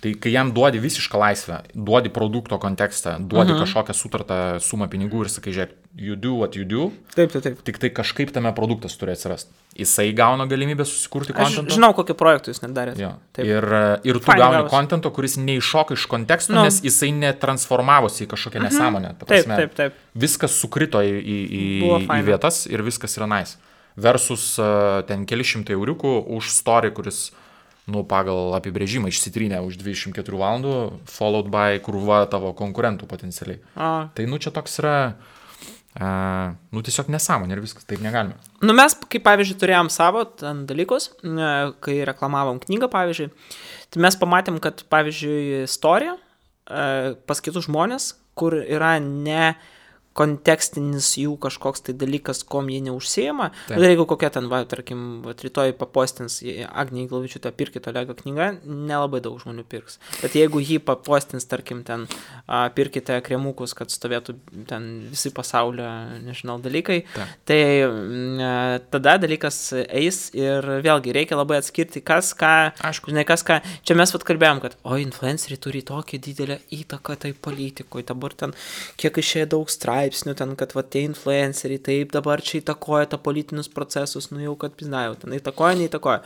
Tai kai jam duodi visišką laisvę, duodi produkto kontekstą, duodi kažkokią sutartą sumą pinigų ir sakai, žiūrėk, you do what you do. Taip. Tik tai kažkaip tame produktas turi atsirasti. Jisai gauna galimybę susikurti kontentą. Aš žinau, kokį projektą jūs net darėte. Ir tu gauni kontento, kuris neiššoka iš konteksto, nes jisai netransformavosi į kažkokią nesąmonę. Taip. Viskas sukrito į vietas ir viskas yra nice. Versus ten keli šimtai euriukų už story, kuris pagal apibrėžimą išsitrynė už 24 valandų, followed by krūva tavo konkurentų potencialiai. Tai čia toks yra tiesiog nesąmonė ir viskas, taip negalime. Mes, kaip pavyzdžiui, turėjom savo dalykus, kai reklamavom knygą, pavyzdžiui, tai mes pamatėm, kad, pavyzdžiui, istorija pas kitus žmonės, kur yra ne kontekstinis jų kažkoks tai dalykas, kom jie neužsiema. Ir jeigu kokia ten, tarkim, rytoj papostins Agnė Iglavičiūtė pirkit Olego knygą, nelabai daug žmonių pirks. Bet jeigu jį papostins, tarkim, ten pirkite kremukus, kad stovėtų ten visi pasaulio, nežinau, dalykai, tai tada dalykas eis ir vėlgi reikia labai atskirti, kas ką, žinai, kas ką. Čia mes kalbėjom, kad influenceriai turi tokią didelę įtaką tai politikoje, dabar ten kiek išėjo daug straipsnių ten, kad tie influenceriai taip dabar čia įtakoja tą politinius procesus, jau kad piznajau, ten įtakoja, neįtakoja.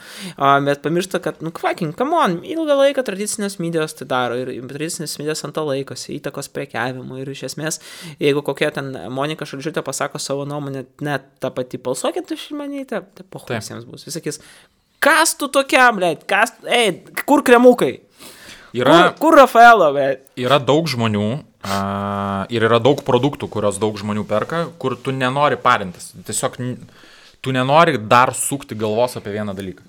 Bet pamiršta, kad, come on, ilgą laiką tradicinės medijos tai daro ir tradicinės medijos ant to laikosi, įtakos prekiavimui ir iš esmės, jeigu kokia ten Monika Šalčiūtė pasako savo nuomonę, net tą patį balsuokit už Šimonytę, tai pohusiems bus. Jis sakys, kas tu tokiam, kur kremukai? Kur Rafaelo, Yra daug žmonių ir yra daug produktų, kurios daug žmonių perka, kur tu nenori parintis. Tiesiog tu nenori dar sukti galvos apie vieną dalyką.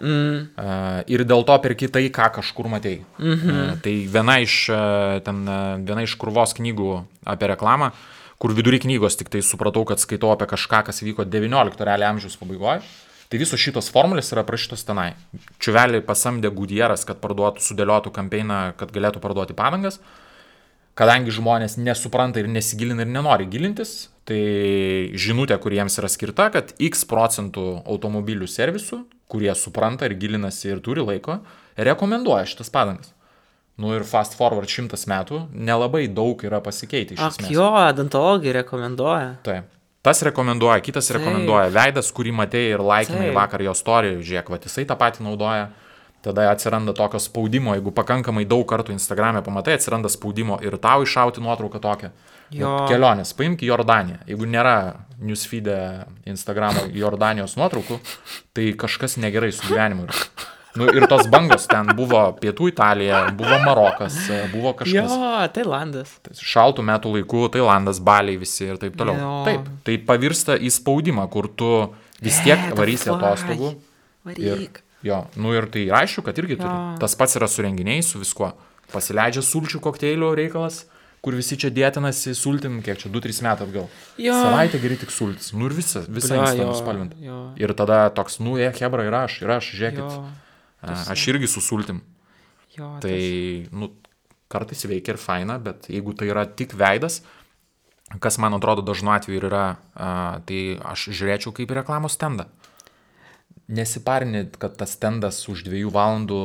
Ir dėl to perki tai, ką kažkur matei. Tai viena iš krūvos knygų apie reklamą, kur vidury knygos tik tai supratau, kad skaitau apie kažką, kas vyko 19 realiai amžiaus pabaigoje. Tai visos šitos formulės yra prašytos tenai. Čiuvelį pasamdė Goodyearas, kad sudėliotų kampeiną, kad galėtų parduoti padangas. Kadangi žmonės nesupranta ir nesigilina ir nenori gilintis, tai žinutė, kuriems yra skirta, kad X% automobilių servisų, kurie supranta ir gilinasi ir turi laiko, rekomenduoja šitas padangas. Ir fast forward 100 metų nelabai daug yra pasikeitę iš esmės. Jo, odontologai rekomenduoja. Taip. Tas rekomenduoja, kitas rekomenduoja. Veidas, kurį matėjai ir laikinai vakar jo story, žiūrėk, va, jisai tą patį naudoja. Tada atsiranda tokio spaudimo, jeigu pakankamai daug kartų Instagram'e pamatai, atsiranda spaudimo ir tau iššauti nuotrauką tokią. Kelionės, paimk Jordaniją. Jeigu nėra newsfeed'e Instagram'o Jordanijos nuotraukų, tai kažkas negerai su gyvenimu yra. Ir tos bangos ten buvo Pietų Italija, buvo Marokas, buvo kažkas. Jo, Tailandas. Šaltų metų laikų, Tailandas, Baliai visi ir taip toliau. Taip, tai pavirsta į spaudimą, kur tu vis tiek varysi atostogų. Varyk. Jo, ir tai aišku, kad irgi turi. Tas pats yra su renginiais, su viskuo. Pasileidžia sulčių kokteilių reikalas, kur visi čia dėtinasi sultim, kiek čia 2-3 metų atgal. Savaitę geri tik sultis. Ir visa Insta nuspalvinta. Ir tada toks, hebra, ir aš, žiūrėkit. Aš irgi su sultim. Tai, kartais veikia ir faina, bet jeigu tai yra tik veidas, kas man atrodo dažnu atveju ir yra, tai aš žiūrėčiau kaip į reklamos stendą. Nesiparini, kad tas stendas už 2 valandų,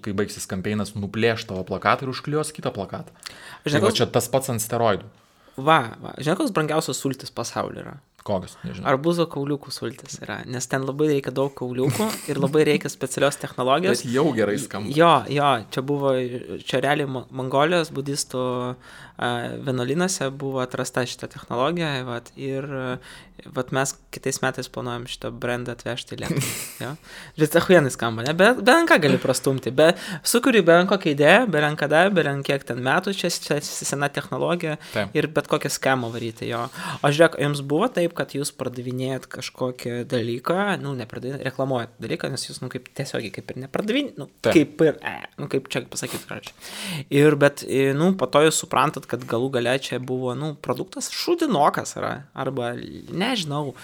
kai baigsis kampeinas, nuplėš tavo plakatą ir užklijuos kitą plakatą. Tai čia tas pats ant steroidų. Žinai, koks brangiausias sultis pasaulyje yra? Kokios, nežinau. Arbūzo kauliukų sultis yra, nes ten labai reikia daug kauliukų ir labai reikia specialios technologijos. Bet jau gerai skamba. Jo, čia realiai Mongolijos budistų vienuolynuose buvo atrasta šitą technologiją, ir mes kitais metais planuojam šitą brandą atvežti į Lietuvą. Bet achuienai skamba, ne? Bet ką gali prastumti, sukuri kokią idėją, kiek ten metų, čia sena technologija ir bet kokią schemą varyti. O žiūrėk, jums buvo taip, kad jūs pardavinėjat kažkokį dalyką, reklamuojat dalyką, nes jūs, kaip tiesiogiai, kaip ir nepardavinėjat, kaip čia pasakyti, bet, po to jūs suprantat, kad galų gale čia buvo, produktas šūdinokas yra, arba, nežinau.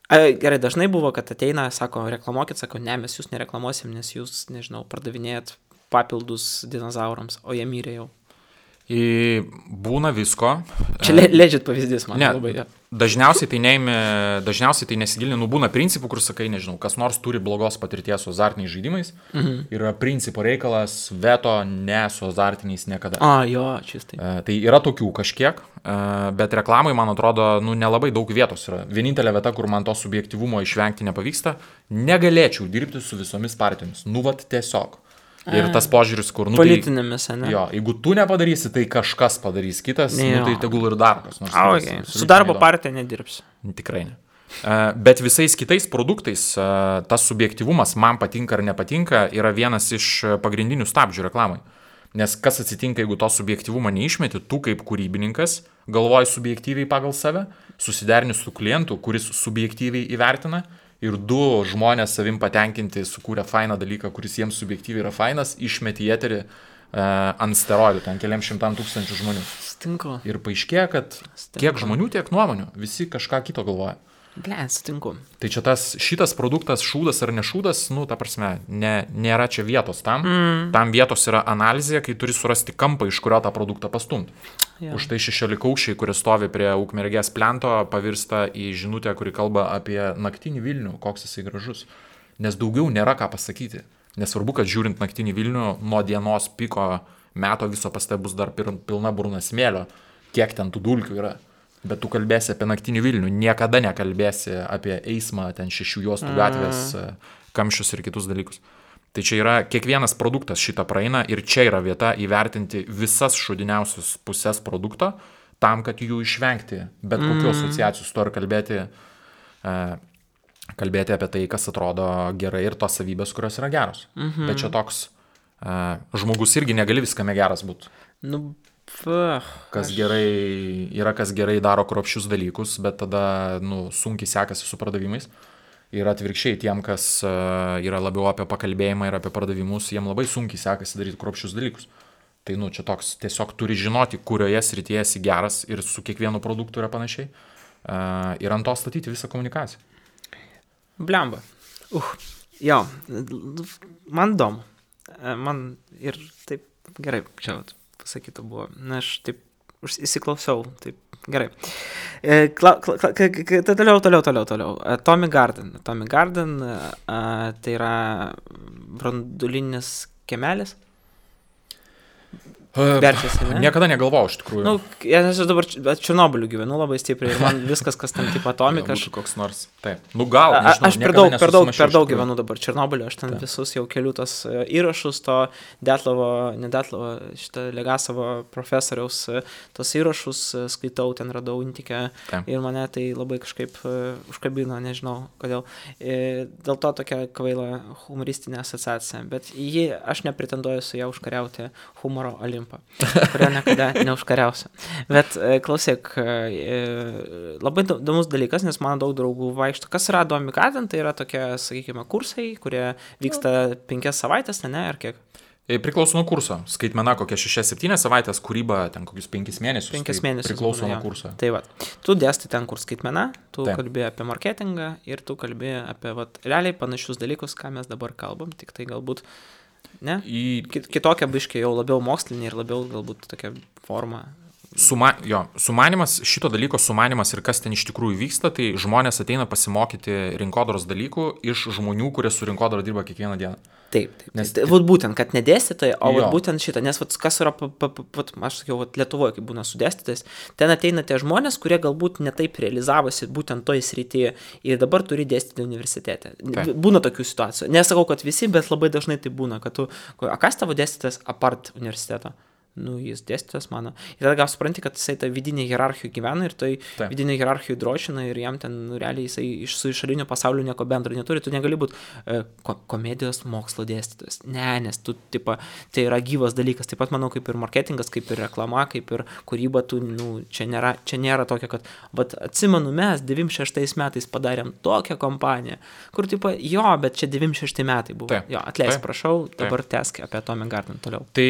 Gerai, dažnai buvo, kad ateina, sako, reklamuokit, sako, ne, mes jūs nereklamuosim, nes jūs, nežinau, pardavinėjat papildus dinozaurams, o jie mirė jau. Būna visko. Čia legit pavyzdys, man labai. Dažniausiai tai nesigilini, būna principų, kur sakai, nežinau, kas nors turi blogos patirties su azartiniais žaidimais, yra principo reikalas, veto, ne su azartiniais niekada. Čistai. Tai yra tokių kažkiek, bet reklamai, man atrodo, nelabai daug vietos yra. Vienintelė vieta, kur man to subjektyvumo išvengti nepavyksta, negalėčiau dirbti su visomis partijomis. Tiesiog. Ir tas požiūris, kur... Politinėmis, ne? Jo, jeigu tu nepadarysi, tai kažkas padarys kitas, tai tegul ir darbas. Su darbo partija nedirbs. Tikrai ne. Bet visais kitais produktais tas subjektyvumas, man patinka ar nepatinka, yra vienas iš pagrindinių stabdžių reklamai. Nes kas atsitinka, jeigu to subjektyvumą neišmeti, tu kaip kūrybininkas galvoji subjektyviai pagal save, susiderini su klientu, kuris subjektyviai įvertina, ir 2 žmonės savim patenkinti sukūrė fainą dalyką, kuris jiems subjektyviai yra fainas, išmeti į eterį ant steroidų, ten keliams 100,000 žmonių. Sutinku. Ir paaiškėja, kad kiek žmonių, tiek nuomonių, visi kažką kito galvoja. Sutinku. Tai čia šitas produktas, šūdas ar nešūdas, ta prasme, nėra čia vietos tam. Tam vietos yra analizė, kai turi surasti kampą, iš kurio tą produktą pastumti. Už tai 16-aukščiai, kurie stovi prie Ukmergės plento, pavirsta į žinutę, kuri kalba apie naktinį Vilnių, koks jisai gražus. Nes daugiau nėra ką pasakyti. Nesvarbu, kad žiūrint naktinį Vilnių, nuo dienos piko meto viso paste bus dar pilna burna smėlio, kiek ten tų dulkių yra. Bet tu kalbėsi apie naktinį Vilnių, niekada nekalbėsi apie eismą, ten 6 juostų gatvės, kamščius ir kitus dalykus. Tai čia yra, kiekvienas produktas šitą praeina ir čia yra vieta įvertinti visas šūdiniausias pusės produkto, tam, kad jų išvengti, bet kokių asociacijų su to ir kalbėti apie tai, kas atrodo gerai ir tos savybės, kurios yra geros. Bet čia toks, žmogus irgi negali viskame geras būti. Kas gerai daro kruopščius dalykus, bet tada sunkiai sekasi su pardavimais. Ir atvirkščiai tiem, kas yra labiau apie pakalbėjimą ir apie pardavimus, jiem labai sunkiai sekasi daryti kruopščius dalykus. Tai, čia toks tiesiog turi žinoti, kurioje srityje esi geras ir su kiekvienu produktu yra panašiai. Ir ant to statyti visą komunikaciją. Blemba. Jo, man įdomu. Man ir taip gerai, čia pasakyta buvo. Na, aš taip įsiklausiau, taip gerai. Toliau. Tommy Garden. Tommy Garden tai yra branduolinis kiemelis. Verčiasi, ne? Niekada negalvojau, iš tikrųjų. Aš dabar Černobyliu gyvenu labai stipriai ir man viskas, kas ten tipo atomika. Koks nors, taip. Gal, nežinau, aš per daug gyvenu dabar Černobyliu, aš ten visus jau keliu tos įrašus, to šitą Legasovo profesoriaus tos įrašus skaitau, ten radau intikę ir mane tai labai kažkaip užkabino, nežinau kodėl. Dėl to tokia kvaila humoristinė asociacija, bet aš nepretenduoju su ją užkariauti humoro olimpą, kurio niekada neužkariausiu. Bet klausyk, labai įdomus dalykas, nes mano daug draugų vaikšto. Kas yra Tommy Garden? Tai yra tokie, sakykime, kursai, kurie vyksta 5 savaitės, ne, ar kiek? Priklauso nuo kurso. Skaitmena kokia 6-7 savaitės, kūryba ten kokius 5 mėnesius. 5 mėnesius. Priklauso nuo kurso. Tai va, tu dėstai ten kur skaitmena, tu kalbėjai apie marketingą ir tu kalbėjai apie realiai panašius dalykus, ką mes dabar kalbam, tik tai galbūt ne? Kitokia biškė jau labiau mokslinė ir labiau galbūt tokia forma. Sumanimas, šito dalyko sumanimas ir kas ten iš tikrųjų vyksta, tai žmonės ateina pasimokyti rinkodaros dalykų iš žmonių, kurie su rinkodara dirba kiekvieną dieną. Taip. Nes būtent, kad nedėstytai, o būtent šitą, nes kas yra, aš sakiau, Lietuvoje, kaip būna su dėstytais, ten ateina tie žmonės, kurie galbūt netaip realizavosi būtent toj srityje ir dabar turi dėstyti universitete. Būna tokių situacijų. Nesakau, kad visi, bet labai dažnai tai būna, kad kas tavo dėstytas apart universiteto? Jis dėstytas mano. Ir tada gal supranti, kad jisai tą vidinį hierarchijų gyvena ir tai vidinį hierarchijų drošina ir jam ten realiai jisai su išorinio pasaulio nieko bendro neturi. Tu negali būti komedijos mokslo dėstytojas. Ne, nes tu, tai yra gyvas dalykas. Taip pat manau, kaip ir marketingas, kaip ir reklama, kaip ir kūryba, čia nėra tokia, kad atsimenu, mes 96 metais padarėm tokią kompaniją, kur bet čia 96 metai buvo. Atleisk, prašau, dabar tęsk apie Tommy Garden toliau. Tai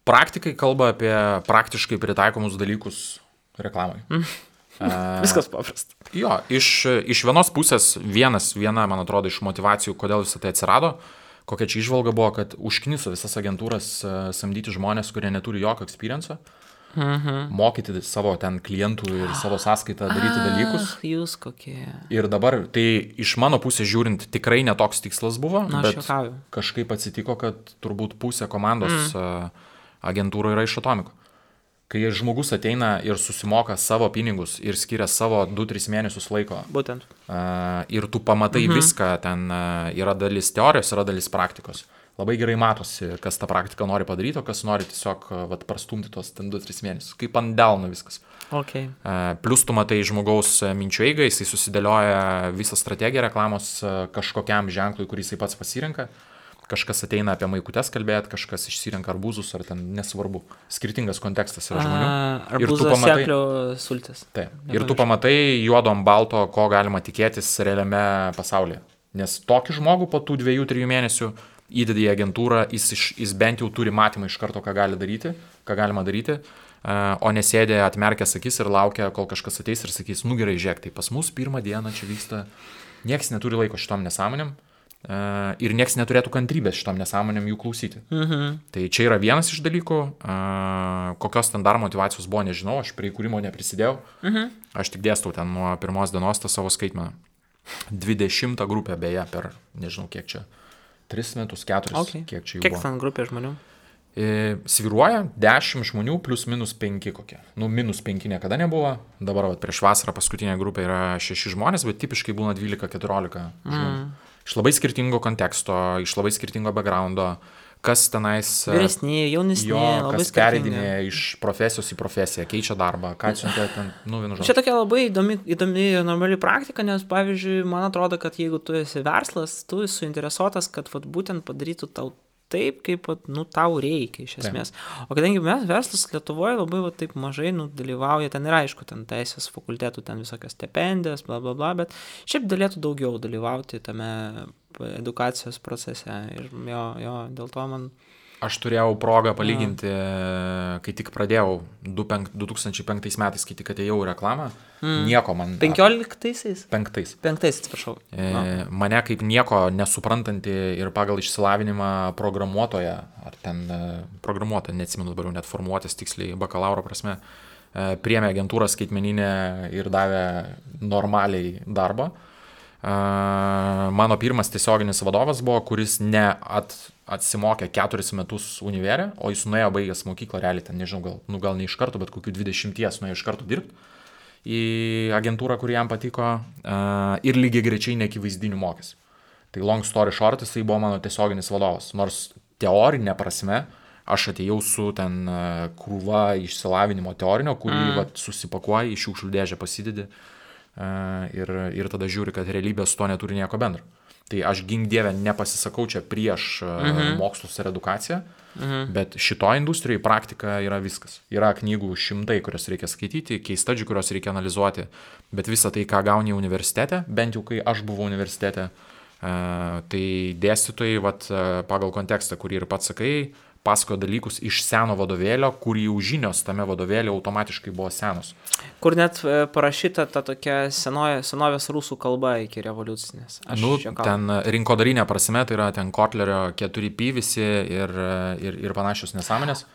praktikai kalba apie praktiškai pritaikomus dalykus reklamai. Viskas paprasta. Iš vienos pusės viena, man atrodo, iš motivacijų, kodėl visą tai atsirado, kokia čia įžvalga buvo, kad užkniso visas agentūras samdyti žmonės, kurie neturi jokio experience'o, mokyti savo ten klientų ir savo sąskaitą daryti dalykus. Jūs kokie. Ir dabar, tai iš mano pusės žiūrint, tikrai netoks tikslas buvo, bet kažkaip atsitiko, kad turbūt pusė komandos agentūrų yra iš Atomiko. Kai žmogus ateina ir susimoka savo pinigus ir skiria savo 2-3 mėnesius laiko. Būtent. Ir tu pamatai viską, ten yra dalis teorijos, yra dalis praktikos. Labai gerai matosi, kas tą praktiką nori padaryti, o kas nori tiesiog prastumti tos 2-3 mėnesius. Kaip ant delno viskas. Okay. Plius tu matai žmogaus minčių eigą, jisai susidėlioja visą strategiją reklamos kažkokiam ženklui, kurį jisai pats pasirenka. Kažkas ateina apie maikutes kalbėti, kažkas išsirenka arbūzus, ar ten nesvarbu. Skirtingas kontekstas yra žmonių. Arbūzas, seklio, sultis. Taip. Ir tu pamatai juodo ant balto, ko galima tikėtis realiame pasaulyje. Nes tokį žmogų po tų 2-3 mėnesių įdedi į agentūrą, jis bent jau turi matymą iš karto, ką galima daryti, o nesėdė atmerkęs akis ir laukia, kol kažkas ateis ir sakys, gerai, žiūrėk, tai pas mus pirmą dieną čia vyksta, nieks neturi laiko šitom nesąmonėm. Ir nieks neturėtų kantrybės šitom nesąmonėm jų klausyti. Tai čia yra vienas iš dalykų, kokios ten dar motyvacijos buvo, nežinau, aš prie įkūrimo neprisidėjau, aš tik dėstau ten nuo pirmos dienos tą savo skaitmeną. 20 grupę beje per, nežinau kiek čia, 3 metus, 4, kiek čia jų buvo. Kiek ten grupė žmonių? Svyruoja 10 žmonių plus minus 5 kokie. Minus 5 niekada nebuvo, dabar prieš vasarą paskutinė grupė yra 6 žmonės, bet tipiškai būna 12-14 žmonių. Iš labai skirtingo konteksto, iš labai skirtingo backgroundo, kas tenais... Vyresni, jaunesni, labai kas pereidinė iš profesijos į profesiją, keičia darbą, ką siuntė ten, vienu žodžiu. Čia tokia labai įdomi ir normali praktika, nes, pavyzdžiui, man atrodo, kad jeigu tu esi verslas, tu esi suinteresuotas, kad būtent padarytų tau taip, kaip, tau reikia iš esmės. O kadangi mes verslas Lietuvoje labai taip mažai dalyvauja, ten ir aišku, ten teisės fakultetų, ten visokios stipendijos, bla bla bla, bet šiaip galėtų daugiau dalyvauti tame edukacijos procese ir jo, dėl to man... Aš turėjau progą palyginti, kai tik pradėjau 2005 metais, kai tik atėjau į reklamą, nieko man... 15-aisiais? 5. Atsiprašau. Mane kaip nieko nesuprantanti ir pagal išsilavinimą programuotoja, ar ten programuotoja, neatsimenu dabar jau net formuotis tiksliai bakalauro prasme, priėmė agentūrą skaitmeninę ir davė normaliai darbą. Mano pirmas tiesioginis vadovas buvo, kuris atsimokė 4 metus univerę, o jis nuėjo baigęs mokyklą, realiai ten, nežinau, gal ne iš karto, bet kokių 20 nuėjo iš karto dirbti į agentūrą, kuri jam patiko, ir lygiai greičiai neakivaizdinių mokėsi. Tai long story short, jisai buvo mano tiesioginis vadovas, nors teorinė prasme aš atėjau su ten krūva išsilavinimo teorinio, kurį susipakuoji, iš šiukšlių dėžę pasidedi. Ir tada žiūri, kad realybė su to neturi nieko bendro. Tai aš gink dievę nepasisakau čia prieš mokslus ir edukaciją, bet šitoj industrijai praktika yra viskas. Yra knygų 100, kurias reikia skaityti, case study, kurios reikia analizuoti, bet visą tai, ką gauni universitete, bent jau kai aš buvau universitete, tai dėstytojai pagal kontekstą, kurį ir pats sakai, pasakojo dalykus iš seno vadovėlio, kur jau žinios tame vadovėlio automatiškai buvo senos. Kur net parašyta ta tokia senovės rusų kalba iki revoliucinės. Ten rinkodarinė prasme, tai yra ten Kotlerio 4P visi ir panašios nesąmonės.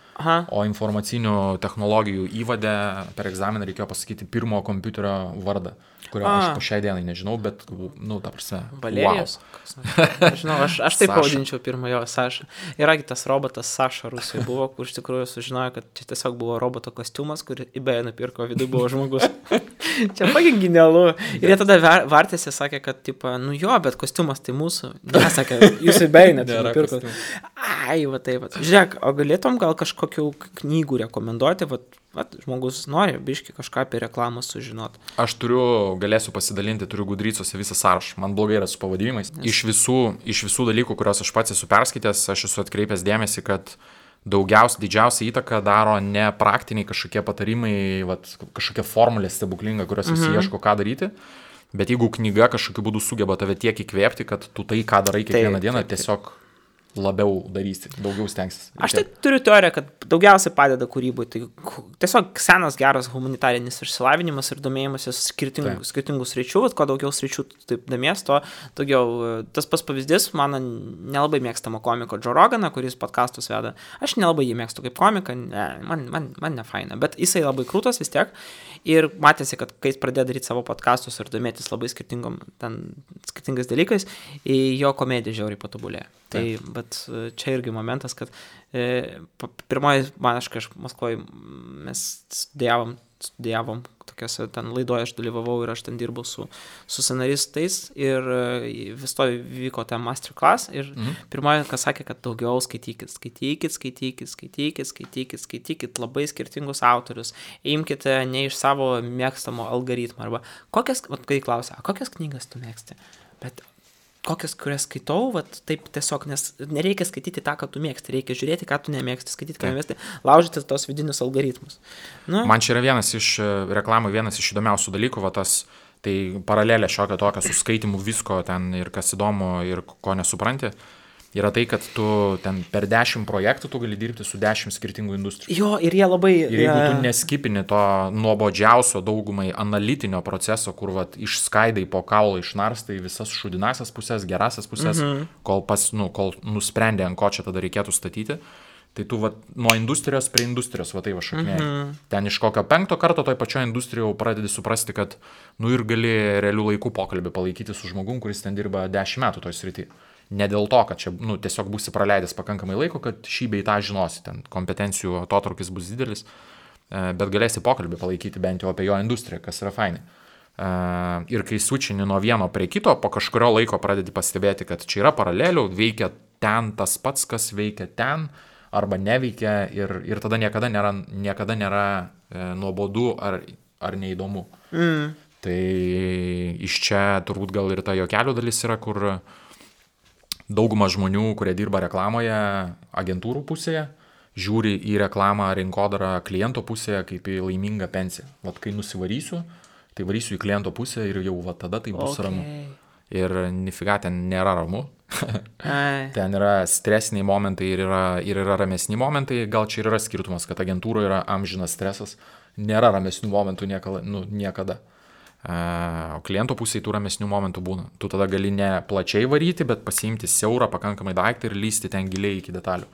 O informacinių technologijų įvade per egzaminą reikėjo pasakyti pirmo kompiuterio vardą, kurio aš po šiai dienai nežinau, bet, ta prasme, Valerijos. Wow. Žinau, aš taip pavadinčiau pirmojo Saša. Iragi tas robotas Saša Rusijoje buvo, kur iš tikrųjų sužinojo, kad čia tiesiog buvo roboto kostiumas, kurį eBay nupirko, viduje buvo žmogus. Čia pagin genialu. Ir jie tada vartėsi, sakė, kad, bet kostiumas tai mūsų. Nesakė, jūs eBay net nupirko. Ai, taip. Žiūrėk, o galėtum gal kažkokių knygų rekomenduoti, žmogus nori biški kažką apie reklamą sužinoti. Aš galėsiu pasidalinti, turiu Gudrycose visą sąrašą. Man blogai yra su pavadinimais. Iš visų dalykų, kuriuos aš pats esu perskaitęs, aš esu atkreipęs dėmesį, kad didžiausia įtaka daro ne praktiniai kažkokie patarimai, kažkokia formulė stebuklinga, kurios visi ieško ką daryti, bet jeigu knyga kažkokiu būdu sugeba tave tiek įkvėpti, kad tu tai, ką darai kiekvieną dieną, tiesiog labiau darysi, daugiau stengsis. Aš tai turiu teoriją, kad daugiausiai padeda kūrybai. Tai tiesiog senas geras humanitarinis išsilavinimas ir domėjimasis skirtingų sričių, kuo daugiau sričių taip domies, to daugiau. Tas pats pavyzdys, mano nelabai mėgstamo komiko Joe Roganą, kuris podcastus veda. Aš nelabai jį mėgstu kaip komiką, man ne faina, bet jisai labai krūtas vis tiek. Ir matėsi, kad kai jis pradėjo daryti savo podcastus ir domėtis labai skirtingais dalykais, jo komedija žiauriai patobulėjo. Tai, bet čia irgi momentas, kad pirmoji, kai aš Maskvoje, mes studijavom tokiose ten laidoje, aš dalyvavau ir aš ten dirbau su scenaristais ir vis to vyko ten masterclass ir pirmoji, kas sakė, kad daugiau skaitykit labai skirtingus autorius, imkite ne iš savo mėgstamo algoritmo arba kai klausia, kokias knygas tu mėgsti, bet kokias, kurias skaitau, taip tiesiog, nes nereikia skaityti tą, ką tu mėgsti, reikia žiūrėti, ką tu nemėgsti, skaityti, ką nemėgsti, laužyti tos vidinius algoritmus. Man čia yra vienas iš įdomiausių dalykų, tai paralelė šiokia tokia su skaitimu visko ten ir kas įdomu ir ko nesupranti. Yra tai, kad tu ten per 10 projektų tu gali dirbti su 10 skirtingų industrijų. Jo, ir jie labai... Ir jeigu tu neskipini to nuobodžiausio daugumai analitinio proceso, kur išskaidai po kaulą išnarstai visas šudinasias pusės, gerasias pusės, kol nusprendė, ant ko čia tada reikėtų statyti, tai tu nuo industrijos prie industrijos šaknėjai. Ten iš kokio 5 karto toj pačioje industrijoje pradedi suprasti, kad ir gali realių laikų pokalbį palaikyti su žmogum, kuris ten dirba 10 metų toj srity. Ne dėl to, kad čia tiesiog būsi praleidęs pakankamai laiko, kad šį bei tą žinosi, ten kompetencijų atotrukis bus didelis, bet galėsi pokalbį palaikyti bent jau apie jo industriją, kas yra fainai. Ir kai switchini nuo vieno prie kito, po kažkurio laiko pradedi pastebėti, kad čia yra paralelių, veikia ten tas pats, kas veikia ten, arba neveikia ir tada niekada nėra nuobodu ar neįdomu. Tai iš čia turbūt gal ir ta juokelių dalis yra, kur dauguma žmonių, kurie dirba reklamoje agentūrų pusėje, žiūri į reklamą rinkodarą kliento pusėje kaip į laimingą pensiją. Vat kai nusivarysiu, tai varysiu į kliento pusę ir jau va tada tai bus ramu. Ir nifiga ten nėra ramu. Ten yra stresiniai momentai ir yra ramesni momentai. Gal čia ir yra skirtumas, kad agentūroje yra amžinas stresas. Nėra ramesnių momentų niekada. O kliento pusėje tų ramesnių momentų būna. Tu tada gali ne plačiai varyti, bet pasiimti siaurą pakankamai daiktą ir lysti ten giliai iki detalių.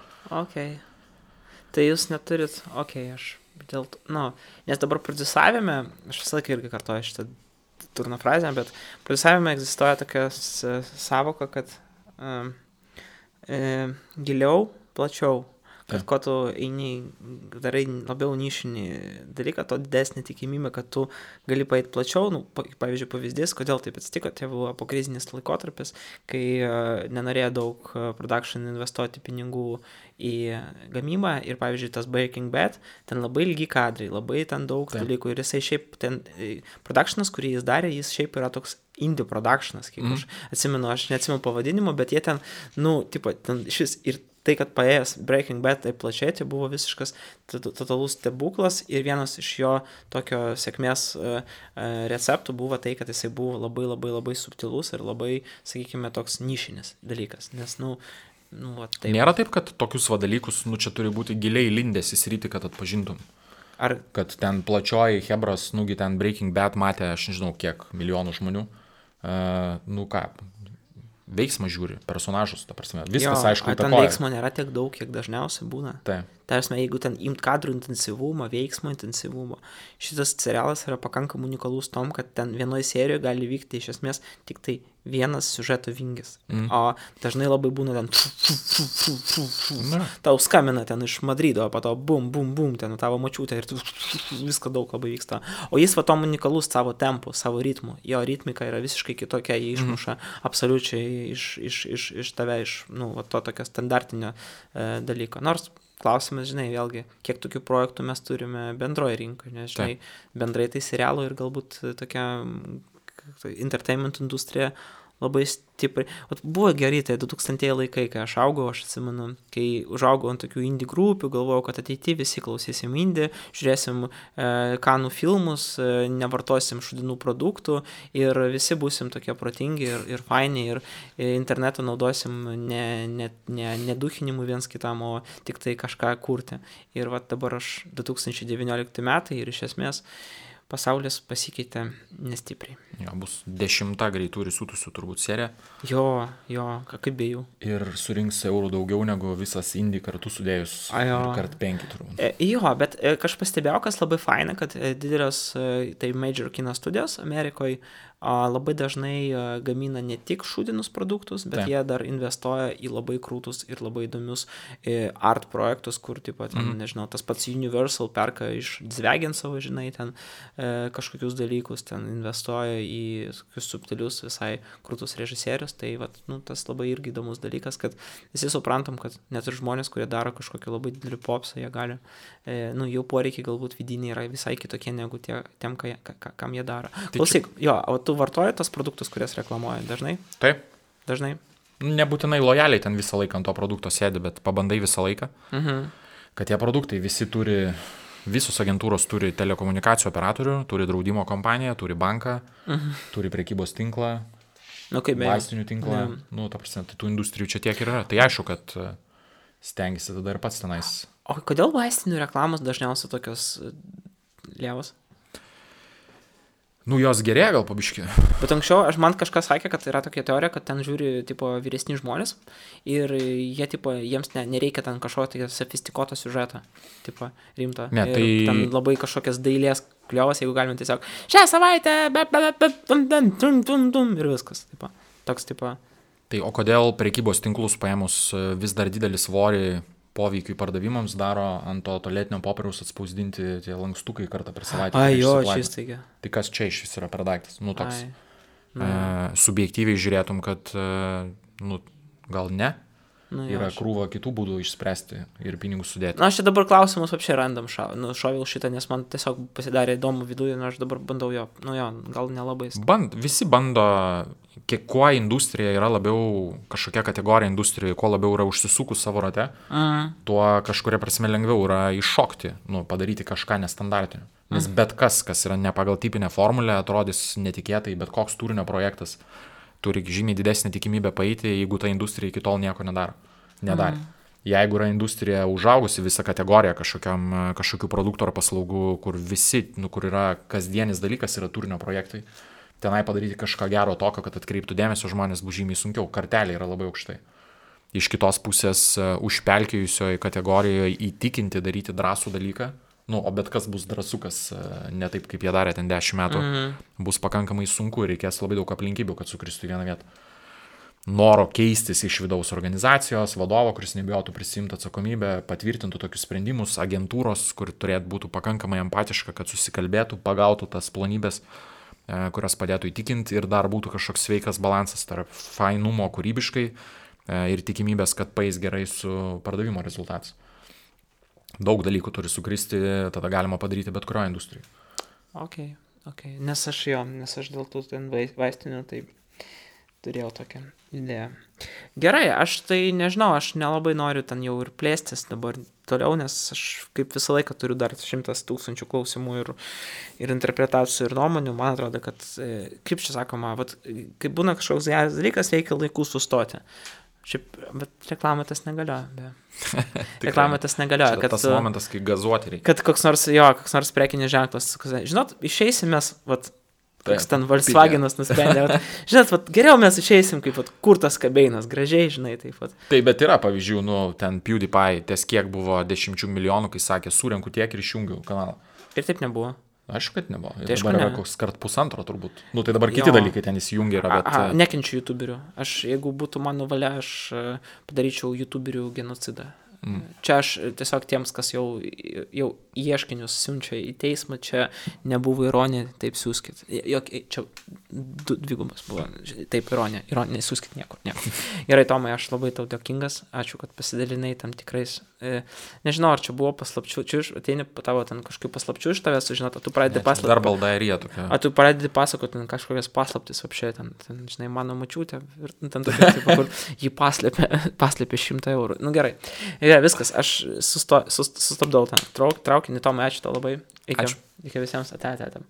Tai jūs neturit, aš dėl to, nes dabar prodiusavime, aš visą laiką irgi kartuoju šitą turno frazę, bet prodiusavime egzistuoja tokia savoka, kad giliau, plačiau, kad ko tu eini, darai labiau nišinį dalyką, to didesnė tikimybė, kad tu gali paėti plačiau. Pavyzdžiui, pavyzdys, kodėl taip atsitiko, tai buvo pokrizinis laikotarpis, kai nenorėjo daug production investuoti pinigų į gamybą ir, pavyzdžiui, tas Breaking Bad, ten labai ilgi kadrai, labai ten daug dalykų ir jisai šiaip ten, productionas, kurį jis darė, jis šiaip yra toks indie productionas, kiek aš atsimenu, aš neatsimenu pavadinimo, bet jie ten, ten šis ir tai, kad paėjęs Breaking Bad taip plačiai, tai buvo visiškas totalus stebuklas ir vienas iš jo tokio sėkmės receptų buvo tai, kad jisai buvo labai labai labai subtilus ir labai, sakykime, toks nišinis dalykas, nes, taip. Nėra taip, kad tokius dalykus, čia turi būti giliai lindęs į sritį, kad atpažintum. Ar kad ten plačioji hebras, ten Breaking Bad matė, aš nežinau, kiek milijonų žmonių, veiksmą žiūri, personažus, ta prasme, viskas aišku įtakoja. Ten veiksmo nėra tiek daug, kiek dažniausiai būna. Taip. Tarsi, jeigu ten imt kadrų intensyvumą, veiksmo intensyvumą, šitas serialas yra pakankamai unikalus tom, kad ten vienoje serijoje gali vykti iš esmės tik tai vienas siužeto vingis. O dažnai labai būna ten tau skambina ten iš Madrido, o po to bum, bum, bum, ten tavo močiutė ir viską daug labai vyksta. O jis tom unikalus savo tempu, savo ritmu. Jo ritmika yra visiškai kitokia, jie išmuša absoliučiai iš tave, to tokio standartinio dalyko. Nors klausimas, žinai, vėlgi, kiek tokių projektų mes turime bendroje rinkoje, nes, žinai, bendrai tai serialų ir galbūt tokia entertainment industrija labai stipriai. Buvo gerai, tai 2000 laikai, kai aš augau, aš atsimenu, kai užaugau ant tokių indie grupių, galvojau, kad ateityje visi klausysim indie, žiūrėsim kanų filmus, nevartosim šudinų produktų ir visi būsim tokie protingi ir faini ir internetą naudosim ne duchinimu viens kitam, o tik tai kažką kurti. Ir dabar aš 2019 metai ir iš esmės pasaulis pasikeitė nestipriai. Jo, bus 10 greitų risūtusių turbūt serija. Jo, kaip be jų. Ir surinks eurų daugiau negu visas indie kartu sudėjus. Kart 5 turbūt. Jo, bet aš pastebėjau, kas labai faina, kad didelės tai major kino studijos Amerikoje labai dažnai gamina ne tik šūdinus produktus, bet jie dar investuoja į labai krūtus ir labai įdomius art projektus, kur, nežinau, tas pats Universal perka iš Zvegensovo, žinai, ten kažkokius dalykus, ten investuoja į subtilius visai krūtus režisierius, tai tas labai irgi įdomus dalykas, kad visi suprantam, kad net ir žmonės, kurie daro kažkokį labai didelį popsą, jie gali, jau poreikiai galbūt vidiniai yra visai kitokie negu tiem, kam jie daro. Klausyk, o tu vartoji tos produktus, kurias reklamuoji dažnai? Taip. Dažnai? Nebūtinai lojaliai ten visą laiką ant to produkto sėdi, bet pabandai visą laiką, kad tie produktai visi visos agentūros turi telekomunikacijų operatorių, turi draudimo kompaniją, turi banką, turi prekybos tinklą, vaistinių tinklą, ta prasme, tai tų industrijų čia tiek yra. Tai aišku, kad stengiasi tada ir pats tenais. O kodėl vaistinių reklamos dažniausiai tokios lievos? Jos gerėja gal pabiški. Bet anksčiau, man kažkas sakė, kad yra tokia teorija, kad ten žiūri, vyresni žmonės ir jie, jiems nereikia ten kažkokio sofistikuoto siužeto, rimto. Ne, tai... Ten labai kažkokias dailės kliovas, jeigu galime tiesiog šią savaitę, ir viskas, toks. Tai o kodėl prekybos tinklus paėmus vis dar didelį svorį poveikiui pardavimams daro ant to tualetinio popieriaus atspausdinti tie lankstukai kartą per savaitę. Čistaigia. Tai kas čia iš vis yra per daiktas? Toks subjektyviai žiūrėtum, kad gal ne, yra krūva kitų būdų išspręsti ir pinigus sudėti. Na, aš čia dabar klausimus apšiai randam šoviau šitą, nes man tiesiog pasidarė įdomu viduje, aš dabar bandau gal nelabai. Visi bando, kuo industrija yra labiau kažkokia kategorija industrijoje, kuo labiau yra užsisukus savo rate, tuo kažkuria prasme lengviau yra iššokti, padaryti kažką nestandartinio. Nes bet kas yra ne pagal tipinę formulę, atrodys netikėtai, bet koks turinio projektas turi žymiai didesnį tikimybę paeiti, jeigu ta industrija iki tol nieko nedarė. Jeigu yra industrija užaugusi visą kategoriją kažkokių produktų ar paslaugų, kur kur yra kasdienis dalykas, yra turinio projektai, tenai padaryti kažką gero tokio, kad atkreiptų dėmesio žmonės bus žymiai sunkiau, kartelė yra labai aukštai. Iš kitos pusės užpelkėjusioje kategorijoje įtikinti daryti drąsų dalyką, o bet kas bus drąsukas, ne taip, kaip jie darė ten 10 metų, bus pakankamai sunku ir reikės labai daug aplinkybių, kad sukristų į vieną vietą. Noro keistis iš vidaus organizacijos, vadovo, kuris nebijotų prisimti atsakomybę, patvirtintų tokius sprendimus, agentūros, kur turėtų būti pakankamai empatiška, kad susikalbėtų, pagautų tas plonybės, kurios padėtų įtikinti ir dar būtų kažkoks sveikas balansas tarp fainumo kūrybiškai ir tikimybės, kad paeis gerai su pardavimo rezultatas. Daug dalykų turi sukristi, tada galima padaryti bet kurioje industrijoje. Ok. Nes aš dėl tų vaistinių tai turėjau tokią idėją. Gerai, aš tai nežinau, aš nelabai noriu ten jau ir plėstis dabar toliau, nes aš kaip visą laiką turiu dar 100 000 klausimų ir interpretacijų ir nuomonių. Man atrodo, kad, kaip čia sakoma, kai būna kažkoks geras dalykas, reikia laiku sustoti. Bet reklamai tas negalioja. Reklamai tas negalioja. Tas momentas, kai gazuoti reikia. Kad koks nors prekinis ženklas. Žinot, išeisim mes, toks ten Volkswagenas nusprendė. Žinot, geriau mes išeisim, kaip kurtas kabeinas, gražiai, žinai, taip pat. Taip, bet yra pavyzdžių, ten PewDiePie, ties kiek buvo 10 milijonų, kai sakė, surenku tiek ir išjungiu kanalą. Ir taip nebuvo. Aišku, kad nebuvo. Tai dabar yra koks kart 1,5 turbūt. Tai dabar kiti dalykai ten įsijungia yra, bet... Nekenčiu youtuberių. Jeigu būtų mano valia, aš padaryčiau youtuberių genocidą. Čia aš tiesiog tiems, kas jau ieškinius siunčia į teismą, čia nebuvo ironija, taip siūskit. Čia dvigubas buvo, taip ironija, siūskit niekur. Gerai, Tomai, aš labai tau dėkingas, ačiū, kad pasidalinai tam tikrais, nežinau, ar čia buvo paslapčių, čia ateini tavo ten kažkokių paslapčių iš tavęs, žinot, tu pradedi pasakoti. Dar baldairija tokia. Tu pradedi pasakoti kažkokias paslaptis, apšiai, ten, žinai, mano mačiutė, ir ten tokia, kur jį paslėpė 100 eurų. Gerai. Viskas, aš sustabdau ten traukinį, Tomai, ačiū tau labai. Iki visiems, ate.